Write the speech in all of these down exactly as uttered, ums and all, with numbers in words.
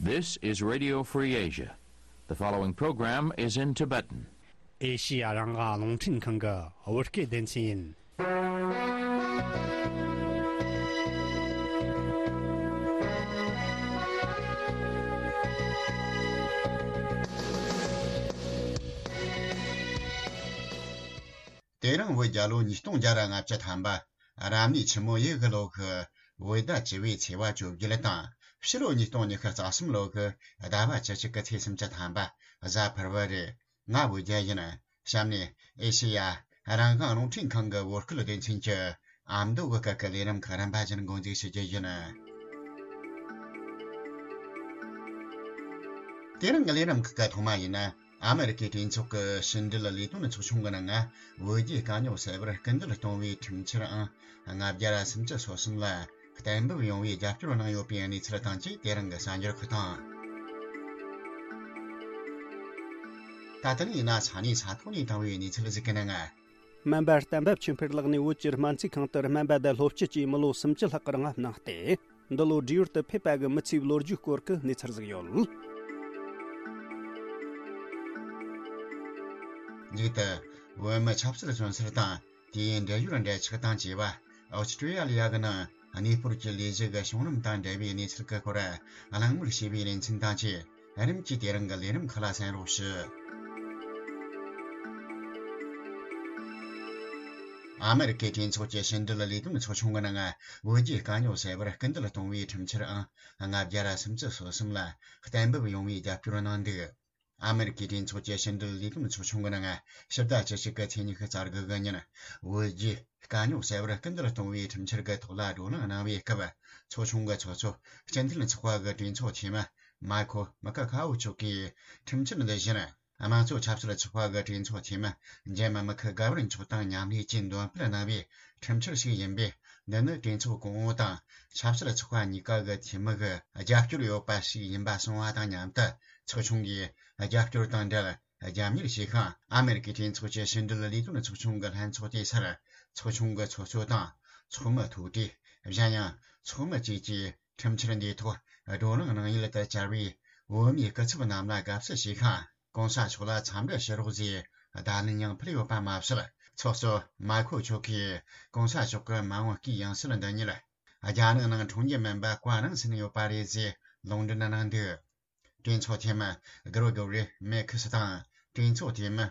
This is Radio Free Asia. The following program is in Tibetan. ཨེ་ཤི་ཡ་རང་དབང་རླུང་འཕྲིན་ཁང་གི་བོད་སྐད་སྡེ་ཚན་ཡིན། དེ་རིང་བོད་རྒྱལ་ལོ་ཉིས་སྟོང་བརྒྱ་ར་ལྔ་བཅུ་ཐམ་པ། རབ་གནས་ཆུ་མོ་ཡོས་གི་ལོ་གི་བོད་ཟླ་བཅུ་བའི་ཚེས་པ་བཅོ་བརྒྱད་དང་། ཕྱི་ལོ་ཉིས་སྟོང་ཉི་ཤུ་རྩ་གསུམ་ལོ་གི་ཟླ་བ་བཅུ་གཅིག་གི་ཚེས་སུམ་ཅུ་ཐམ་པ་གཟའ་ཕུར་བུ་རེད། ང་བོད་རྒྱལ་ཡིན། གཤམ་ནས་ཨེ་ཤེ་ཡ་རང་དབང་རླུང་འཕྲིན་ཁང་གི་བོད་སྐད་སྡེ་ཚན་གྱི་ཨ་མདོ་གི་སྐད་ཀྱི་ལས་རིམ་ཁག་རིམ་པ་བཞིན་འགོ་འཛུགས་ཞུ་རྒྱུ་ཡིན། དེ་རིང་གི་ལས་རིམ་ཁག་གི་ཐོག་མ་ཡིན་ན། ཨ་མེ་རི་ཀའི་གྲོས་ཚོགས་ཀྱི་ཕྱི་འབྲེལ་ལས་དོན་ཚོགས་ཆུང་གི་ནང་ང་བོད་རྒྱའི་དཀའ་རྙོག་སེལ་བར་སྐུལ་འདེད་གཏོང་བའི་ཁྲིམས་འཆར་ཨང་ལྔ་བརྒྱ་ར་སུམ་ཅུ་སོ་གསུམ་ལ་གཏན་འབེབས་ཡོང་བའི་རྒྱབ་སྐྱོར་གནང་ཡོད་པའི་གནས་ཚུལ་དང་བཅས། དེ་རིང་གི་གསར་འགྱུར་ཁག་དང་། ད་ལྟ་ནས་ཡིན་ན་ས་གནས་ས་ཐོག་ནས་བཏང་བའི་གནས་ཚུལ་ཟིག་གི་ནང་ང་། སྨན་པ་གཏན་འབེབས་ཆོས་འཕེལ་ལགས་ནས་བོད་ཀྱི་སྨན་རྩིས་ཁང་དུ་སྨན་པ་དང་སློབ་སྤྱི་བཅས་མི་ལོ་སུམ་ཅུ་ལྷག་གི་རིང་ལ་གནང་སྟེ། འདི་ལོ་བགྲེས་ཡོལ་དུ་ཕེབས་པ་གི་མི་ཚེའི་ལོ་རྒྱུས་སྐོར་གྱི་གནས་ཚུལ་ཟིག་ཡོད། མཇུག་ཏུ། བོད་མི་ཆབ་སྲིད་བཙོན་སར་དང་དེའི་འབྲེལ་ཡོད་འབྲེལ་ཆགས་དང་བཅས་པ་ཨོ་སི་ཀྲི་ཡ་ལི་ཡ་གི་ནང་གནས་སྤོར་གྱི་ལས་གཞི་གི་བྱུང་རིམ་དང་འབྲེལ་བའི་གནས་ཚུལ་གྱི་སྐོར་གླེང་མོལ་བྱས་པའི་ལེ་ཚན་དང་བཅས། རིམ་གྱིས་དེ་རིང་གི་ལས་རིམ་ཁག་ལ་གསན་རོགས་ཞུ། ཨ་མེ་རི་ཀའི་གྲོས་ཚོགས་ཀྱི་ཕྱི་འབྲེལ་ལས་དོན་ཚོགས་ཆུང་གི་ནང་བོད་རྒྱའི་དཀའ་རྙོག་སེལ་བར་སྐུལ་འདེད་གཏོང་བའི་ཁྲིམས་འཆར་ཨང་ལྔ་བརྒྱ་ར་སུམ་ཅུ་སོ་གསུམ་ལ་གཏན་འབེབས་ཡོང་བའི་རྒྱབ་སྐྱོར་གནང་འདུག་ཨ་མེ་རི་ཀའི་གྲོས་ཚོགས་ཀྱི་ཕྱི་འབྲེལ་ལས་དོན་ཚོགས་ཆུང་གི་ནང་ཕྱི་ཟླ་བཅུ་གཅིག་གི་ཚེས་ཉི་ཤུ་རྩ་དགུ་གི་ཉིན་བོད་རྒྱའི་དཀའ་རྙོག་སེལ་བར་སྐུལ་འདེད་གཏོང་བའི་ཁྲིམས་འཆར་གྱི་ཐོག་ལ་བགྲོ་གླེང་གནང་བའི་སྐབས། ཚོགས་ཆུང་གི་ཚོགས་གཙོ་སྤྱི་འཐུས་ཚོགས་པ་གི་གྲོས་ཚོགས་འཐུས་མི་མཱ་ཁོ་མི་ཀ་ཁ་ཨོ་མཆོག་གིས་ཁྲིམས་འཆར་འདི་བཞིན། དམངས་གཙོ་ཆབ་སྲིད་ཚོགས་པ་གི་གྲོས་ཚོགས་འཐུས་མི་འཇམ་དམག་ཁུལ་དགའ་བར་མཆོག་དང་མཉམ་ལས་ཀྱིས་འདོན་སྤེལ་གནང་བའི་ཁྲིམས་འཆར་ཞིག་ཡིན་པས། འདི་ནི་གྲོས་ཚོགས་གོང་འོག་དང་ཆབ་སྲིད་ཚོགས་པ་གཉིས་ཀ་གི་འཐུས་མི་གི་རྒྱབ་སྐྱོར་ཡོད་པ་ཞིག་ཡིན་པ་གསུངས་པ་དང་མཉམ་དུ། ཚོགས་ཆུང་གིས་རྒྱབ་སྐྱོར་དང་འབྲེལ་རྒྱབ་གཉེར་བྱེད་ཤིང་། ཨ་མེ་རི་ཀའི་གྲོས་ཚོགས་ཀྱི་ཕྱི་འབྲེལ་ལས་དོན་ཚོགས་ཆུང་གི་ལྷན་ཚོགས་དེ་སར་ཚོགས་ཆུང་གི་ཚོགས་གཙོ་དང་ཚོགས་མི་ཐུག་འཕྲད། གཞན་ཡང་ཚོགས་མི་བཅས་ཀྱིས་ཁྲིམས་འཆར་འདིའི་ཐོག་བགྲོ་གླེང་གནང་ཡུལ་དུ་བཅར་བའི་བོད་མིའི་སྐུ་ཚབ་རྣམས་ལ་དགའ་བསུ་ཞུས་ཤིང་། གོང་ས་མཆོག་ལ་འཚམས་འདྲི་ཞུ་རོགས་ཞེས་བརྡ་ལན་ཡང་ཕུལ་ཡོད་པ་མ་ཟད། ཚོགས་གཙོ་མཱ་ཁོ་མཆོག་གིས་གོང་ས་མཆོག་གི་མ་འོངས་སྐུའི་ཡང་སྲིད་འདི་ཉིད་རྒྱ་ནག་ནང་འཁྲུངས་རྒྱུ་མིན་པ་བཀའ་གནང་ཟིན་ཡོད་པ་རེད་ཅེས་ལུང་འདྲེན་གནང་འདུག་གྲོས་ཚོགས་འཐུས་མི་གྷི་རོ་གོ་རི་མེ་ཁི་སི་དང་། གྲོས་ཚོགས་འཐུས་མི་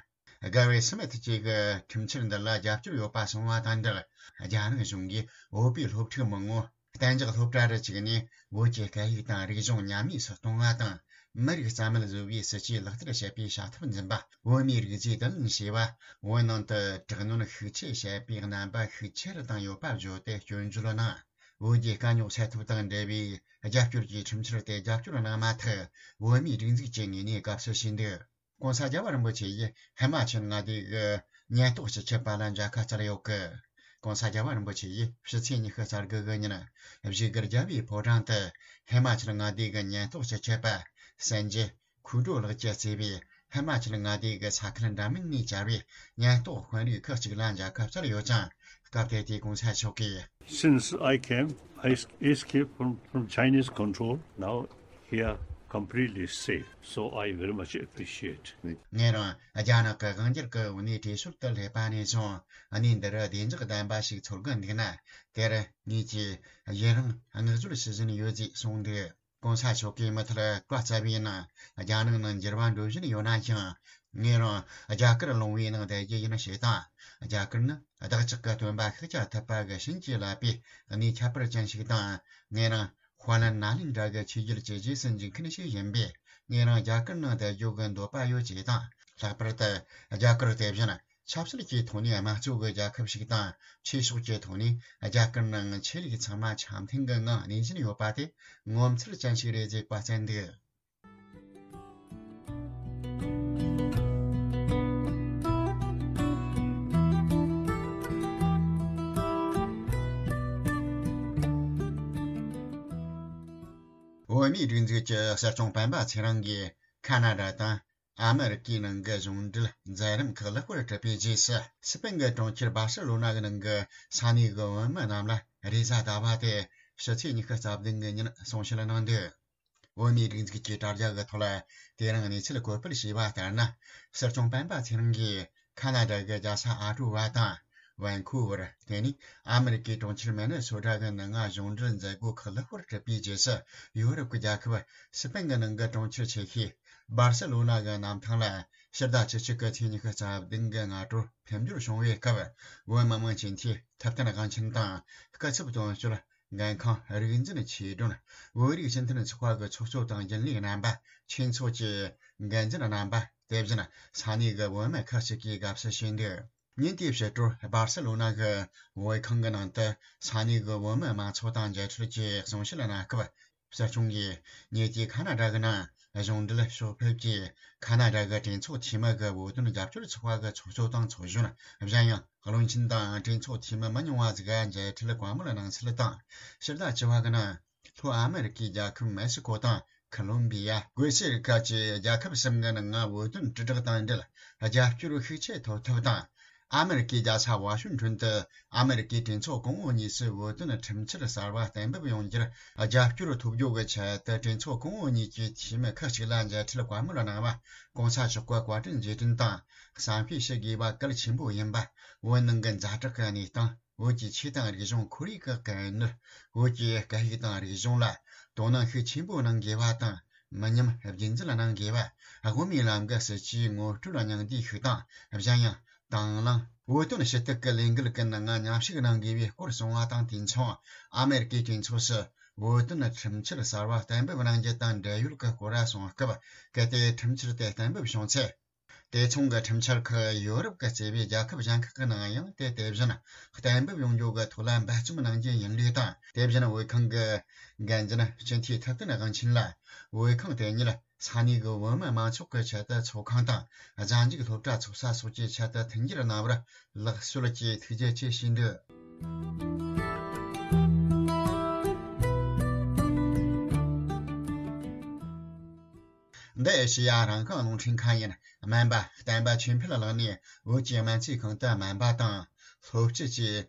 གྷ་རི་སི་མིད་བཅས་ཀྱིས་ཁྲིམས་འཆར་འདི་ལ་རྒྱབ་སྐྱོར་ཡོད་པ་གསུངས་པ་དང་འབྲེལ། རྒྱ་ནག་གཞུང་གིས་བོད་པའི་སློབ་ཕྲུག་མང་པོ་གཏན་འཇགས་སློབ་གྲྭ་རུ་བཅུག་ནས། བོད་ཀྱི་སྐད་ཡིག་དང་རིག་གཞུང་ཉམས་དམས་སུ་གཏོང་བ་དང་། མི་རིགས་རྩ་མེད་བཟོ་བའི་སྲིད་ཇུས་ལག་བསྟར་བྱེད་པའི་བྱ་ཐབས་འཛིན་པ། བོད་མིའི་རིགས་རྫས་དུ་ལེན་བྱས་པ། བོད་ནང་དུ་དྲག་གནོན་ཤུགས་ཆེ་བྱེད་པའི་རྣམ་པ་ཤུགས་ཆེ་རུ་བཏང་ཡོད་པ་བརྗོད་དེ་སྐྱོན་བརྗོད་གནང་། བོད་རྒྱའི་དཀའ་རྙོག་སེལ་ཐབས་དང་འབྲེལ་བའི་རྒྱབ་སྐྱོར་གྱི་ཁྲིམས་འཆར་དེ་རྒྱབ་སྐྱོར་གནང་མ་ཐག་བོད་མིའི་སྒྲིག་འཛུགས་ཀྱི་ངོས་ནས་དགའ་བསུ་ཞུས་འདུག་གོང་ས་རྒྱལ་བ་རིན་པོ་ཆེ་ཡིས་ཧི་མ་ཅལ་མངའ་སྡེ་གི་ཉེན་རྟོག་སྤྱི་ཁྱབ་པ་ལ་མཇལ་ཁ་བསྩལ་ཡོད་སྐད། གོང་ས་རྒྱལ་བ་རིན་པོ་ཆེ་ཡིས་ཕྱི་ཚེས་ཉི་ཤུ་རྩ་དགུ་གི་ཉིན་བཞུགས་སྒར་རྒྱལ་བའི་ཕོ་བྲང་དུ་ཧི་མ་ཅལ་མངའ་སྡེ་གི་ཉེན་རྟོག་སྤྱི་ཁྱབ་པ་སན་ཇེ་ཁུ་ཀྲོ་ལགས་ཀྱིས་གཙོས་པའི་ཧི་མ་ཅལ་མངའ་སྡེ་གི་ས་ཁུལ་འདྲ་མིན་ནས་བཅར་བའི་ཉེན་རྟོག་དཔོན་རིགས་ཁག་ཅིག་ལ་མཇལ་ཁ་བསྩལ་ཡོད་ཅིང་། སྐབས་དེ་དུས་གོང་ས་མཆོག་གིས། Since I came, I escaped from, from Chinese control. Now here completely safe. So I very much appreciate. ངས་རང་རྒྱ་ནག་གི་དབང་སྒྱུར་གྱི་འོག་ནས་བྲོས་བྱོལ་དུ་སླེབས་པ་ནས་བཟུང་། གནས་འདི་རུ་བདེ་འཇགས་ལྡན་པ་ཞིག་འཚོལ་གི་འདུག་ན། དེར་ངེད་ཀྱིས་ཡུན་རིང་བསྔགས་བརྗོད་ཞུ་བཞིན་ཡོད་ཅེས་གསུངས་འདུག་གོང་ས་མཆོག་གིས་མུ་མཐུད་བཀའ་སྩལ་བའི་ནང་། རྒྱ་ནག་ནང་འགྱུར་བ་འགྲོ་བཞིན་ཡོད་ན་ཡང་། ངེད་རང་རྒྱ་གར་ལུང་བའི་ནང་བསྡད་རྒྱུ་ཡིན་ཞེས་དང་། རྒྱ་གར་ནི་བདག་ཅག་གི་སྟོན་པ་ཤཱཀྱ་ཐུབ་པ་གི་བྱིན་གྱིས་བརླབས་པའི་གནས་ཁྱད་པར་ཅན་ཞིག་དང་། ངེད་རང་དཔལ་ནཱ་ལེནྡྲ་གི་ཆོས་བརྒྱུད་ཀྱི་རྗེས་སུ་འཇུག་མཁན་ཞིག་ཡིན་པས། ངེད་རང་རྒྱ་གར་ནང་བསྡད་རྒྱུ་གི་འདོད་པ་ཡོད་ཅེས་དང་། ལྷག་པར་དུ་རྒྱ་གར་དེ་བཞིན་ཆབ་སྲིད་ཀྱི་ཐོག་ནས་དམངས་གཙོ་གི་རྒྱལ་ཁབ་ཞིག་དང་། ཆོས་ཕྱོགས་ཀྱི་ཐོག་ནས་རྒྱ་གར་ནང་ཆོས་ལུགས་ཚང་མ་འཆམ་མཐུན་གྱི་ངང་གནས་བཞིན་ཡོད་པ་དེ་ངོ་མཚར་ཅན་ཞིག་རེད་ཅེས་བཀའ་སྩལ་འདུག་བོད་མིའི་སྒྲིག་འཛུགས་ཀྱི་སྲིད་སྐྱོང་སྤེན་པ་ཚེ་རིང་གིས་ཁ་ན་ཌ་དང་ཨ་མེ་རི་ཀའི་ནང་གི་གཞུང་འབྲེལ་མཛད་རིམ་ཁག་ལེགས་པར་གྲུབ་པའི་རྗེས་སུ། སི་པན་གྱི་གྲོང་ཁྱེར་སྦར་སེ་ལོ་ན་གི་ནང་གི་ས་གནས་ཀྱི་བོད་མི་རྣམས་ལ་རེས་གཟའ་ཟླ་བ་སྟེ་ཕྱི་ཚེས་ཉི་ཤུ་རྩ་བདུན་གི་ཉིན་གསུང་བཤད་གནང་འདུག་བོད་མིའི་སྒྲིག་འཛུགས་ཀྱི་དྲ་རྒྱ་གི་ཐོག་ལ་དེ་རིང་གནས་ཚུལ་བཀོད་སྤེལ་བྱས་པ་ལྟར་ན། སྲིད་སྐྱོང་སྤེན་པ་ཚེ་རིང་གིས་ཁ་ན་ཌ་གི་རྒྱལ་ས་ཨ་ཀྲོ་བ་དང་ཝན་ཁུ་ཝར། དེ་ནས་ཨ་མེ་རི་ཀའི་གྲོང་ཁྱེར་མེ་ནེ་སོ་ཊ་གི་ནང་ང་གཞུང་འབྲེལ་མཛད་སྒོ་ཁག་ལེགས་པོར་གྲུབ་པའི་རྗེས་སུ། ཡོ་རོབ་ཀྱི་རྒྱལ་ཁབ་སི་པན་གྱི་ནང་གི་གྲོང་ཁྱེར་ཆེ་ཤོས་སྦར་སེ་ལོ་ན་གི་གནམ་ཐང་ལ་ཕྱི་ཟླ་བཅུ་གཅིག་གི་ཚེས་ཉི་ཤུ་རྩ་བདུན་གྱི་སྔ་དྲོར་འཕེལ་འགྱུར་བྱུང་བའི་སྐབས། བོད་མི་མང་སྤྱི་འཐུས་ཐུབ་བསྟན་དབང་ཆེན་དང་སྐུ་ཚབ་དོན་གཅོད་འགན་ཁང་རིག་འཛིན་ཆོས་སྒྲོན། བོད་རིགས་སྤྱི་མཐུན་ཚོགས་པ་གི་ཚོགས་གཙོ་དང་རྒྱུན་ལས་རྣམ་པ། ཆོས་ཚོགས་ཀྱི་འགན་འཛིན་རྣམ་པ། དེ་བཞིན་ས་གནས་ཀྱི་བོད་མི་ཁག་ཅིག་གིས་དགའ་བསུ་ཞུས་འདུག་ཉིན་དེའི་ཕྱི་དྲོར་སྦར་སེ་ལོ་ན་གི་བོད་ཁང་གི་ནང་དུ་ས་གནས་ཀྱི་བོད་མི་མང་ཚོགས་དང་མཇལ་འཕྲད་ཀྱིས་གསུང་བཤད་གནང་སྐབས། སྲིད་སྐྱོང་གིས་ཉེ་ཆར་ཁ་ན་ཌ་གི་ནང་གཞུང་འབྲེལ་ཕྱོགས་ཕེབས་ཀྱིས། ཁ་ན་ཌ་གི་གྲོས་ཚོགས་འཐུས་མི་གི་བོད་དོན་རྒྱབ་སྐྱོར་ཚོགས་པ་གི་ཚོགས་གཙོ་དང་ཚོགས་གཞོན། གཞན་ཡང་བློན་ཆེན་དང་གྲོས་ཚོགས་འཐུས་མི་མི་ཉུང་བ་ཟིག་ག་མཇལ་འཕྲད་བཀའ་མོལ་གནང་ཚུལ་དང་། ཕྱི་ཟླ་བཅུ་བ་གི་ནང་ལྷོ་ཨ་མེ་རི་ཀའི་རྒྱལ་ཁབ་མེག་སི་ཀོ་དང་ཁོ་ལོམ་བི་ཡ། གོ་ཤར་ཁུལ་གྱི་རྒྱལ་ཁབ་གསུམ་གྱི་ནང་ང་བོད་དོན་དྲིལ་བསྒྲགས་དང་འབྲེལ་རྒྱབ་སྐྱོར་ཤུགས་ཆེ་ཐོབ་ཐབས་དང་། ཨ་མེ་རི་ཀའི་རྒྱལ་ས་ཝ་ཤིང་ཊོན་དུ་ཨ་མེ་རི་ཀའི་གྲོས་ཚོགས་གོང་འོག་གཉིས་སུ་བོད་དོན་ཁྲིམས་འཆར་གསར་བ་གཏན་འབེབས་ཡོང་རྒྱུར་རྒྱབ་སྐྱོར་ཐོབ་རྒྱུ་གི་ཆེད་དུ། གྲོས་ཚོགས་གོང་འོག་གཉིས་ཀྱི་འཐུས་མི་ཁག་ཅིག་ལ་མཇལ་འཕྲད་བཀའ་མོལ་གནང་བ། གོང་ས་མཆོག་གི་བཀའ་དྲིན་རྗེས་དྲན་དང་བསམ་ཤེས་ཞུ་དགོས་པ་གལ་ཆེན་པོ་ཡིན་པ། བོད་ནང་གི་ཛ་དྲག་གི་གནས་སྟངས། བོད་ཀྱི་ཆོས་དང་རིག་གཞུང་ཁོར་ཡུག་གི་དཀའ་གནད། བོད་ཀྱི་སྐད་ཡིག་དང་རིག་གཞུང་ལ་དོ་སྣང་ཤུགས་ཆེན་པོ་གནང་དགོས་པ་དང་། མི་ཉམས་རྒྱུན་འཛིན་གནང་དགོས་པ། དབུ་མའི་ལམ་གྱི་སྲིད་བྱུས་ངོ་སྤྲོད་སྙིང་བསྡུས་ཤིག་དང་། གཞན་ཡང་དང་བླངས་བོད་དོན་ཞུ་གཏུག་གི་ལས་འགུལ་གྱི་ནང་མཉམ་ཞུགས་གནང་དགོས་པའི་སྐོར་གསུངས་པ་དང་། དུས་མཚུངས་ཨ་མེ་རི་ཀའི་གྲོས་ཚོགས་སུ་བོད་དོན་ཁྲིམས་འཆར་གསར་བ་གཏན་འབེབས་གནང་རྒྱུ་དང་འབྲེལ་ཡོད་ཀྱི་སྐོར་གསུངས་སྐབས། གལ་ཏེ་ཁྲིམས་འཆར་དེ་གཏན་འབེབས་བྱུང་ཚེ། དེ་མཚུངས་ཀྱི་ཁྲིམས་འཆར་ཁག་ཡོ་རོབ་ཀྱི་རྩ་བའི་རྒྱལ་ཁབ་གཞན་ཁག་གི་ནང་ཡང་དེ་དེ་བཞིན་གཏན་འབེབས་ཡོང་རྒྱུ་གི་ཐོག་ལ་འབད་བརྩོན་གནང་རྒྱུ་ཡིན་ལུགས་དང་། དེ་བཞིན་བོད་ཁང་གི་འགན་འཛིན་སྤྱི་འཐུས་ཐུབ་བསྟན་དབང་ཆེན་ལ། བོད་ཁང་དེ་ཉིད་ས་གནས་ཀྱི་བོད་མི་མང་ཚོགས་ཀྱི་ཆེད་དུ་ཚོགས་ཁང་དང་། གཟའ་མཇུག་སློབ་གྲྭ་ཚོགས་ས་སོགས་ཀྱི་ཆེད་དུ་མཐུན་འགྱུར་གནང་བར་ལེགས་གསོལ་གྱིས་ཐུགས་རྗེ་ཆེ་ཞུས་འདུག་འདི་ཨེ་ཤེ་ཡ་རང་དབང་རླུང་འཕྲིན་ཁང་ཡིན། སྨན་པ་བསྟན་པ་ཆོས་འཕེལ་ལགས་ནས་བོད་ཀྱི་སྨན་རྩིས་ཁང་དུ་སྨན་པ་དང་སློབ་སྤྱི་བཅས་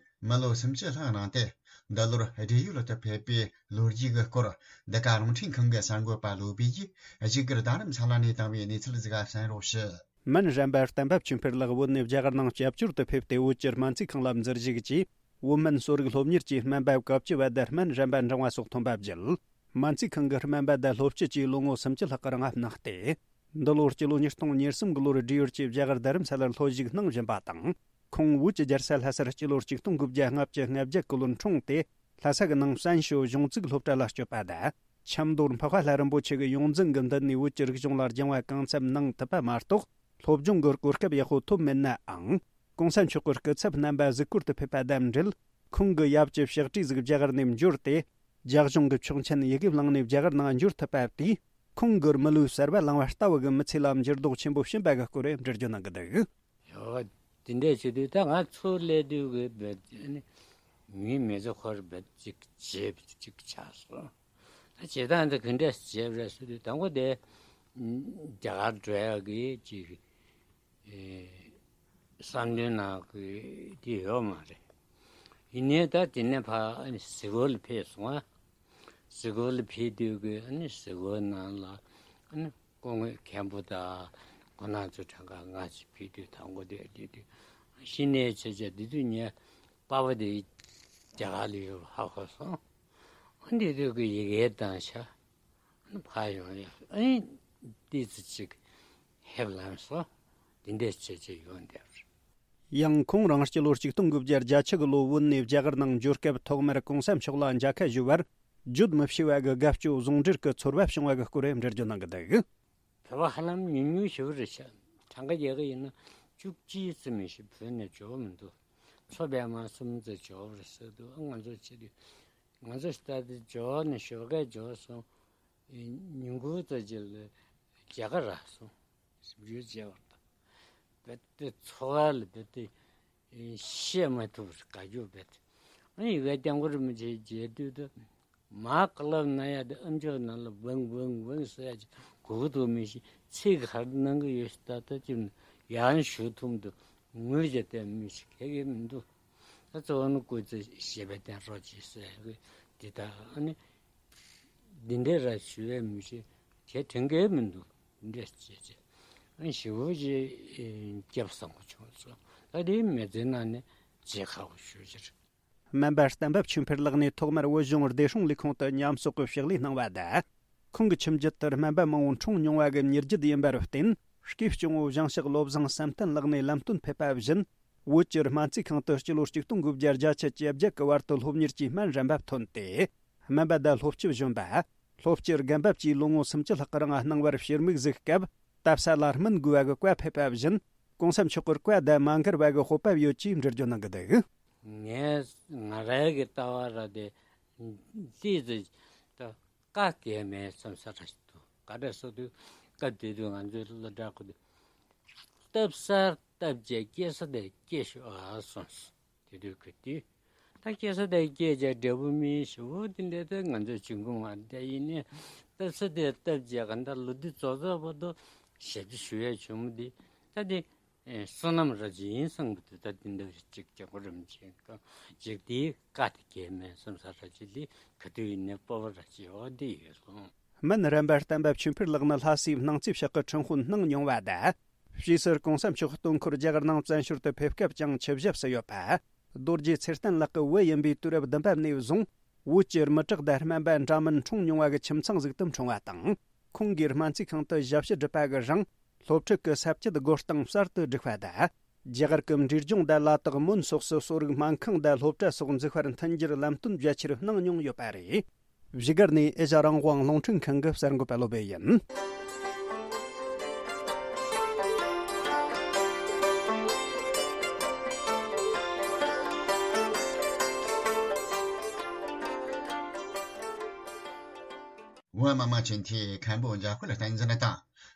མི་ལོ་སུམ་ཅུ་ལྷག་གནང་སྟེ། འདི་ལོར་བགྲེས་ཡོལ་དུ་ཕེབས་པའི་ལོ་རྒྱུས་ཀྱི་སྐོར། འདི་ག་རླུང་འཕྲིན་ཁང་གི་གསར་འགོད་པ་བློ་བྷེ་ཡིས་བཞུགས་སྒར་རྡ་རམ་ས་ལ་ནས་བཏང་བའི་གནས་ཚུལ་ཟིག་གསན་རོགས་ཞུ། སྨན་རམས་པ་བསྟན་པ་ཆོས་འཕེལ་ལགས་བོད་ནས་རྒྱ་གར་ནང་སྐྱབས་བཅོལ་དུ་ཕེབས་ཏེ། བོད་ཀྱི་སྨན་རྩིས་ཁང་ལ་འཛུལ་བཞུགས་ཀྱིས། བོད་སྨན་གསོ་རིག་སློབ་གཉེར་གྱི་སྨན་པ་བཀའ་བཅུ་བ་དང་སྨན་རམས་པ་འབྲིང་བ་སོགས་ཐོན་པ་བརྒྱུད། སྨན་རྩིས་ཁང་གི་སྨན་པ་དང་སློབ་སྤྱི་བཅས་ལོ་ངོ་སུམ་ཅུ་ལྷག་གི་རིང་ལ་གནང་སྟེ། འདི་ལོར་སྤྱི་ལོ་ཉིས་སྟོང་ཉེར་གསུམ་གྱི་ལོར་བགྲེས་ཡོལ་གྱིས་རྒྱ་གར་རྡ་རམ་ས་ལར་སློབ་ཞུགས་གནང་བཞིན་པ་དང་། ཁོང་བོད་ཀྱི་རྒྱལ་ས་ལྷ་སར་སྤྱི་ལོར་ཆིག་སྟོང་དགུ་བརྒྱ་ལྔ་བཅུ་ང་བརྒྱད་ཀྱི་ལོར་འཁྲུངས་ཏེ། ལྷ་ས་གི་ནང་བཙན་བྱོལ་གཞུང་བཙུགས་སློབ་གྲྭ་ལ་བསྐྱོད་པ་དང་། ཆབ་མདོར་འཕགས་པ་ལྷ་རིན་པོ་ཆེ་གི་ཡོངས་འཛིན་གྱི་མདུན་ནས་བོད་ཀྱི་རིག་གཞུང་ལ་སྦྱང་བ་གང་འཚམ་གནང་ཐུབ་པ་མ་གཏོགས། སློབ་སྦྱོང་གི་གོ་སྐབས་ཡག་པོ་ཐོབ་མེད་ནའང་། གོང་ས་མཆོག་གི་སྐུ་ཚབ་རྣམ་པ་གཟིགས་སྐོར་དུ་ཕེབས་པ་དང་འབྲེལ། ཁོང་གི་ཡབ་ཀྱི་ཕྱག་བྲིས་ཟིག་རྒྱ་གར་ནས་འབྱོར་ཏེ། རྒྱ་གཞུང་གི་ཆོག་མཆན་ཡི་གེ་བླངས་ནས་རྒྱ་གར་ནང་འབྱོར་ཐུབ་པ་དེས། ཁོང་གི་མི་ལུས་གསར་པ་བླངས་པ་ལྟ་བུ་གི་མི་ཚེ་ལ་འགྱུར་ལྡོག་ཆེན་པོ་ཕྱིན་པ་གི་སྐོར་འགྲེལ་བརྗོད་གནང་གི་འདུག་ཡོ། དེ་འདྲས་བྱེད་དུས་ད་ང་ཚུར་སླེབས་དུས་ཀྱི་བེད་ནི་མིའི་མི་ཚེ་ཁོར་བེད་ཅིག་བྱེད་ཅིག་ཆགས་སོང་། ད་བྱེད་སྟངས་འདི་ག་འདྲས་བྱེད་རེད་ཟེར་དུས། དང་པོ་དེ་རྒྱ་གར་འགྲོ་ཡག་གི་ཅིག་ཨེ་བསམ་དོན་ནང་གི་དེ་ཡོད་མ་རེད། ཡིན་ནའི་ད་དེ་ནས་ཕར་ཨ་ནི་གཟིགས་སྐོར་ལ་ཕེབས་སོང་ཨ། གཟིགས་སྐོར་ལ་ཕེབས་དུས་ཀྱི་ཨ་ནི་གཟིགས་སྐོར་ནང་ལ་ཨ་ནི་སྐུ་ངོ་མཁན་པོ་དང་སྐུ་ན་གཙོ་གྲངས་ཀ་ལྔ་ཅིག་ཕེབས་དུས། དང་པོ་དེ་དེ་དུས་གཞི་ནས་བྱས་བྱས་དེ་དུས་ངས་པ་ཕ་དེ་རྒྱ་གར་ལ་ཡོད་པ་ཧ་གོ་སོང་། ཨ་འདི་དུས་ཀྱི་ཡི་གེ་དང་ཤ། ཕར་ཡོང་ཡ། ཨེ་ཏི་ཙི་ཅིག་ཧེབ་ལངས་སོ། འདི་འདྲས་བྱས་བྱས་ཡོང་བསྡད་པ་རེད། ཡང་ཁོང་རང་སྤྱི་ལོ་ཆིག་སྟོང་དགུ་བརྒྱ་བརྒྱད་ཅུ་གི་ལོ་བོད་ནས་རྒྱ་གར་ནང་འབྱོར་སྐབས། ཐོག་མར་གོང་ས་མཆོག་ལ་མཇལ་ཁ་ཞུ་བར་བརྗོད་མི་ཤེས་པ་གི་དགའ་སྐྱོ་ཟུང་འབྲེལ་གྱི་ཚོར་བ་བྱུང་བ་གི་སྐོར་འགྲེལ་བརྗོད་གནང་གི་འདུག་བོད་པ་ཧ་ལམ་ཉུང་ཉུང་ཞིག་རེད་ཤག་གྲངས་ཀ་རྒྱག་གི་ཡིན་ན་བཅུ་གཅིག་ཙམ་མི་ཤེས། བོད་ནས་འབྱོར་མི་འདུག་མཚོ་པདྨ་གསུམ་ཙམ་འབྱོར་རེད་ཟེར་འདུག་ང་ཚོ་ཆེ་དུས། ང་ཚོ་ལྟ་དུས་འབྱོར་ནས་ཞོགས་ཀས་འབྱོར་སོང་། ཉིན་གུང་ཙམ་ཅིག་ལ་མཇལ་ཁ་རག་སོང་། ཞིབ་འཇུག་བྱས་པ་དང་། རྦད་དེ་འཚོ་བ་ལ་རྦད་དེ་བཤད་མ་ཐུབ་པར་དགའ་སྐྱོ་རྦད་དེ། ཨ་ནི་ཡི་གེ་རྐྱང་པོར་མི་བྱེད་རྒྱས་བསྡུས་དུ། མར་ཀླབ་ན་ཡ་དེ་ཨམ་ཅོག་ནང་ལ་ཝང་ཝང་ཝང་ཟེར་ཡ་ཅིག་གོ་གི་འདུག་མི་ཤེས། ཚིག་ག་རེ་གནང་གི་ཡོད་ཤག་ད་ལྟ་ཅིག་ཡང་ཞུ་ཐུབ་མི་འདུག་ངོས་བྱས་བསྡད་མི་ཤེས། ག་གེ་མི་འདུག་ད་གཙོ་བོ་ནི་སྐུ་ཚེ་ཞབས་པད་བརྟན་རོགས་གྱིས་ཟེར་གི་འདི་ལྟར། ཨ་ནི་ འདི་འདྲའི་ར་ཞུ་བའི་མི་ཤེས། དེ་དྲན་གྱི་མི་འདུག་འདི་འདྲ་བྱས་བྱས། ཨ་ཞེ་པོ་ཅིག་སྐྱབས་བཟང་པོ་བྱུང་སོང་། ད་དེ་མི་ཚེ་ནང་ནས་བརྗེད་དཀའ་བ་ཞེ་པོ་ཅིག་རེད། སྨན་པ་གཏན་པ་ཆོས་འཕེལ་ལགས་ནས་ཐོག་མར་བོད་གཞུང་བདེ་སྲུང་ལས་ཁུངས་དུ་ཉམས་གསོག་གི་ཕྱག་ལས་གནང་བ་དང་། ཁོང་གི་ཁྱིམ་རྒྱུད་དུ་སྨན་པ་མང་པོ་འཁྲུངས་མྱོང་བ་གི་མྱུར་རྒྱུད་ཡིན་པར་བརྟེན། སྐྱེས་སྐྱོང་བོ་ཞིང་གཤེགས་བློ་བཟང་བསམ་གཏན་ལགས་ནས་ལམ་སྟོན་ཕེབས་པ་བཞིན། བོད་ཀྱི་སྨན་རྩིས་ཁང་དུ་སྤྱི་ལོ་ཆིག་སྟོང་དགུ་བརྒྱ་བརྒྱད་ཅུ་གྱ་བརྒྱད་ཀྱི་བར་དུ་སློབ་གཉེར་གྱི་སྨན་རིམ་པ་ཐོན་ཏེ། སྨན་པ་དང་སློབ་སྤྱི་གཞོན་པ། སློབ་སྤྱི་རྒན་པ་བཅས་ལོ་ངོ་སུམ་ཅུ་ལྷག་གི་རིང་གནང་བར་ཕྱིར་མིག་གཟིགས་སྐབས། ལྟ་ས་ལ་སྨན་དགོས་པ་གི་བཀའ་ཕེབས་པ་བཞིན། གོང་ས་མཆོག་གི་བཀའ་དང་མ་འགལ་བ་གི་སྤོབས་པ་ཡོད་ཅེས་འགྲེལ་བརྗོད་གནང་གི་འདུག་ངས་ང་རང་གི་ལྟ་བ་ར་དེ་ཏིས་ད་བཀའ་གལ་མེད་བསམ་ས་ར་ཞིག་འདུག་ག་འདྲ་སོ་དུས་སྐབས་དེ་དུས་ང་ཚོའི་སློབ་གྲྭ་ཁུལ་དུ་སྟབས་སར་སྟབས་བྱས་སྐྱེ་ས་དེ་སྐྱེ་ཤོག་ཨ་གསུངས་སོང་། དེ་དུས་ཁུལ་དུས་ད་སྐྱེ་ས་དེ་སྐྱེ་བྱས་འབྲས་བུ་སྨིན་ཞུ་བོ་དེ་འདྲ་དེ་ང་ཚོའི་ཆུང་ཀུ་མ་དེ་ཡིན་ནས་སྟབས་ས་དེ་སྟབས་བྱས་ག་འདྲ་ལོ་དུས་རྫོགས་རྫོགས་བར་དུ་ཞབས་ཕྱི་ཞུ་ཡས་བྱུང་མི་དེ་ད་དེ། ཨེ། བསོད་ནམས་ར་ཅིག་ཡིན་བསམ་གི་འདུག་ད་འདི་འདྲ་ཅིག་རྒྱལ་པོ་རིམ་བྱོན་གྱི་ཅིག་དེའི་བཀའ་དེ་གལ་མེད་བསམ་ས་ར་ཅིག་ལས་ག་དུས་ཡིན་ནའི་སྤོབས་པ་ར་ཅིག་འོ་འདི་ཡོད་སོང་། སྨན་རམས་པ་བསྟན་པ་ཆོས་འཕེལ་ལགས་ནི་ལྷ་སའི་སྣང་རྩེ་ཕྱོགས་ཀྱི་ཁྲིམས་དཔོན་གནང་མྱོང་བ་དང་། ཕྱིས་སུ་གོང་ས་མཆོག་སྟོན་འཁོར་རྒྱ་གར་ནང་བཙན་བྱོལ་དུ་ཕེབས་སྐབས་ཀྱང་ཆིབས་ཞབས་སུ་ཡོད་པ། རྡོ་རྗེ་ཚེ་བརྟན་ལགས་ཀྱི་བུ་ཡིན་པའི་དུས་རབས་བདུན་པ་ནས་བཟུང་། བོད་ཀྱི་མི་དྲག་དང་སྨན་པ་འདྲ་མིན་འཁྲུངས་མྱོང་བ་གི་ཁྱིམ་ཚང་ཟིག་ཏུ་འཁྲུངས་པ་དང་། ཁོང་གིས་སྨན་རྩིས་ཁང་དུ་ཞབས་ཕྱི་བསྒྲུབས་པ་གི་རིང་། སློབ་ཕྲུག་གི་ས་བཅད་བགོ་སྟངས་གསར་དུ་བསྒྲིགས་པ་དང་། རྒྱ་གར་གྱི་འབྲས་ལྗོངས་དང་ལ་དྭགས་མོན་སོགས་སུ་གསོ་རིག་སྨན་ཁང་དང་སློབ་གྲྭ་སོགས་འཛུགས་པར་མཐུན་འགྱུར་ལམ་སྟོན་རྒྱ་ཆེར་གནང་མྱོང་ཡོད་པ་རེད། བཞུགས་སྒར་ནས་ཨེ་ཤ་རང་དབང་རླུང་འཕྲིན་ཁང་གི་གསར་འགོད་པ་བློ་བྷེ་ཡིན། བོད་མི་མང་སྤྱི་འཐུས་མཁན་པོ་འཇམ་དཔལ་བསྟན་འཛིན་དང་།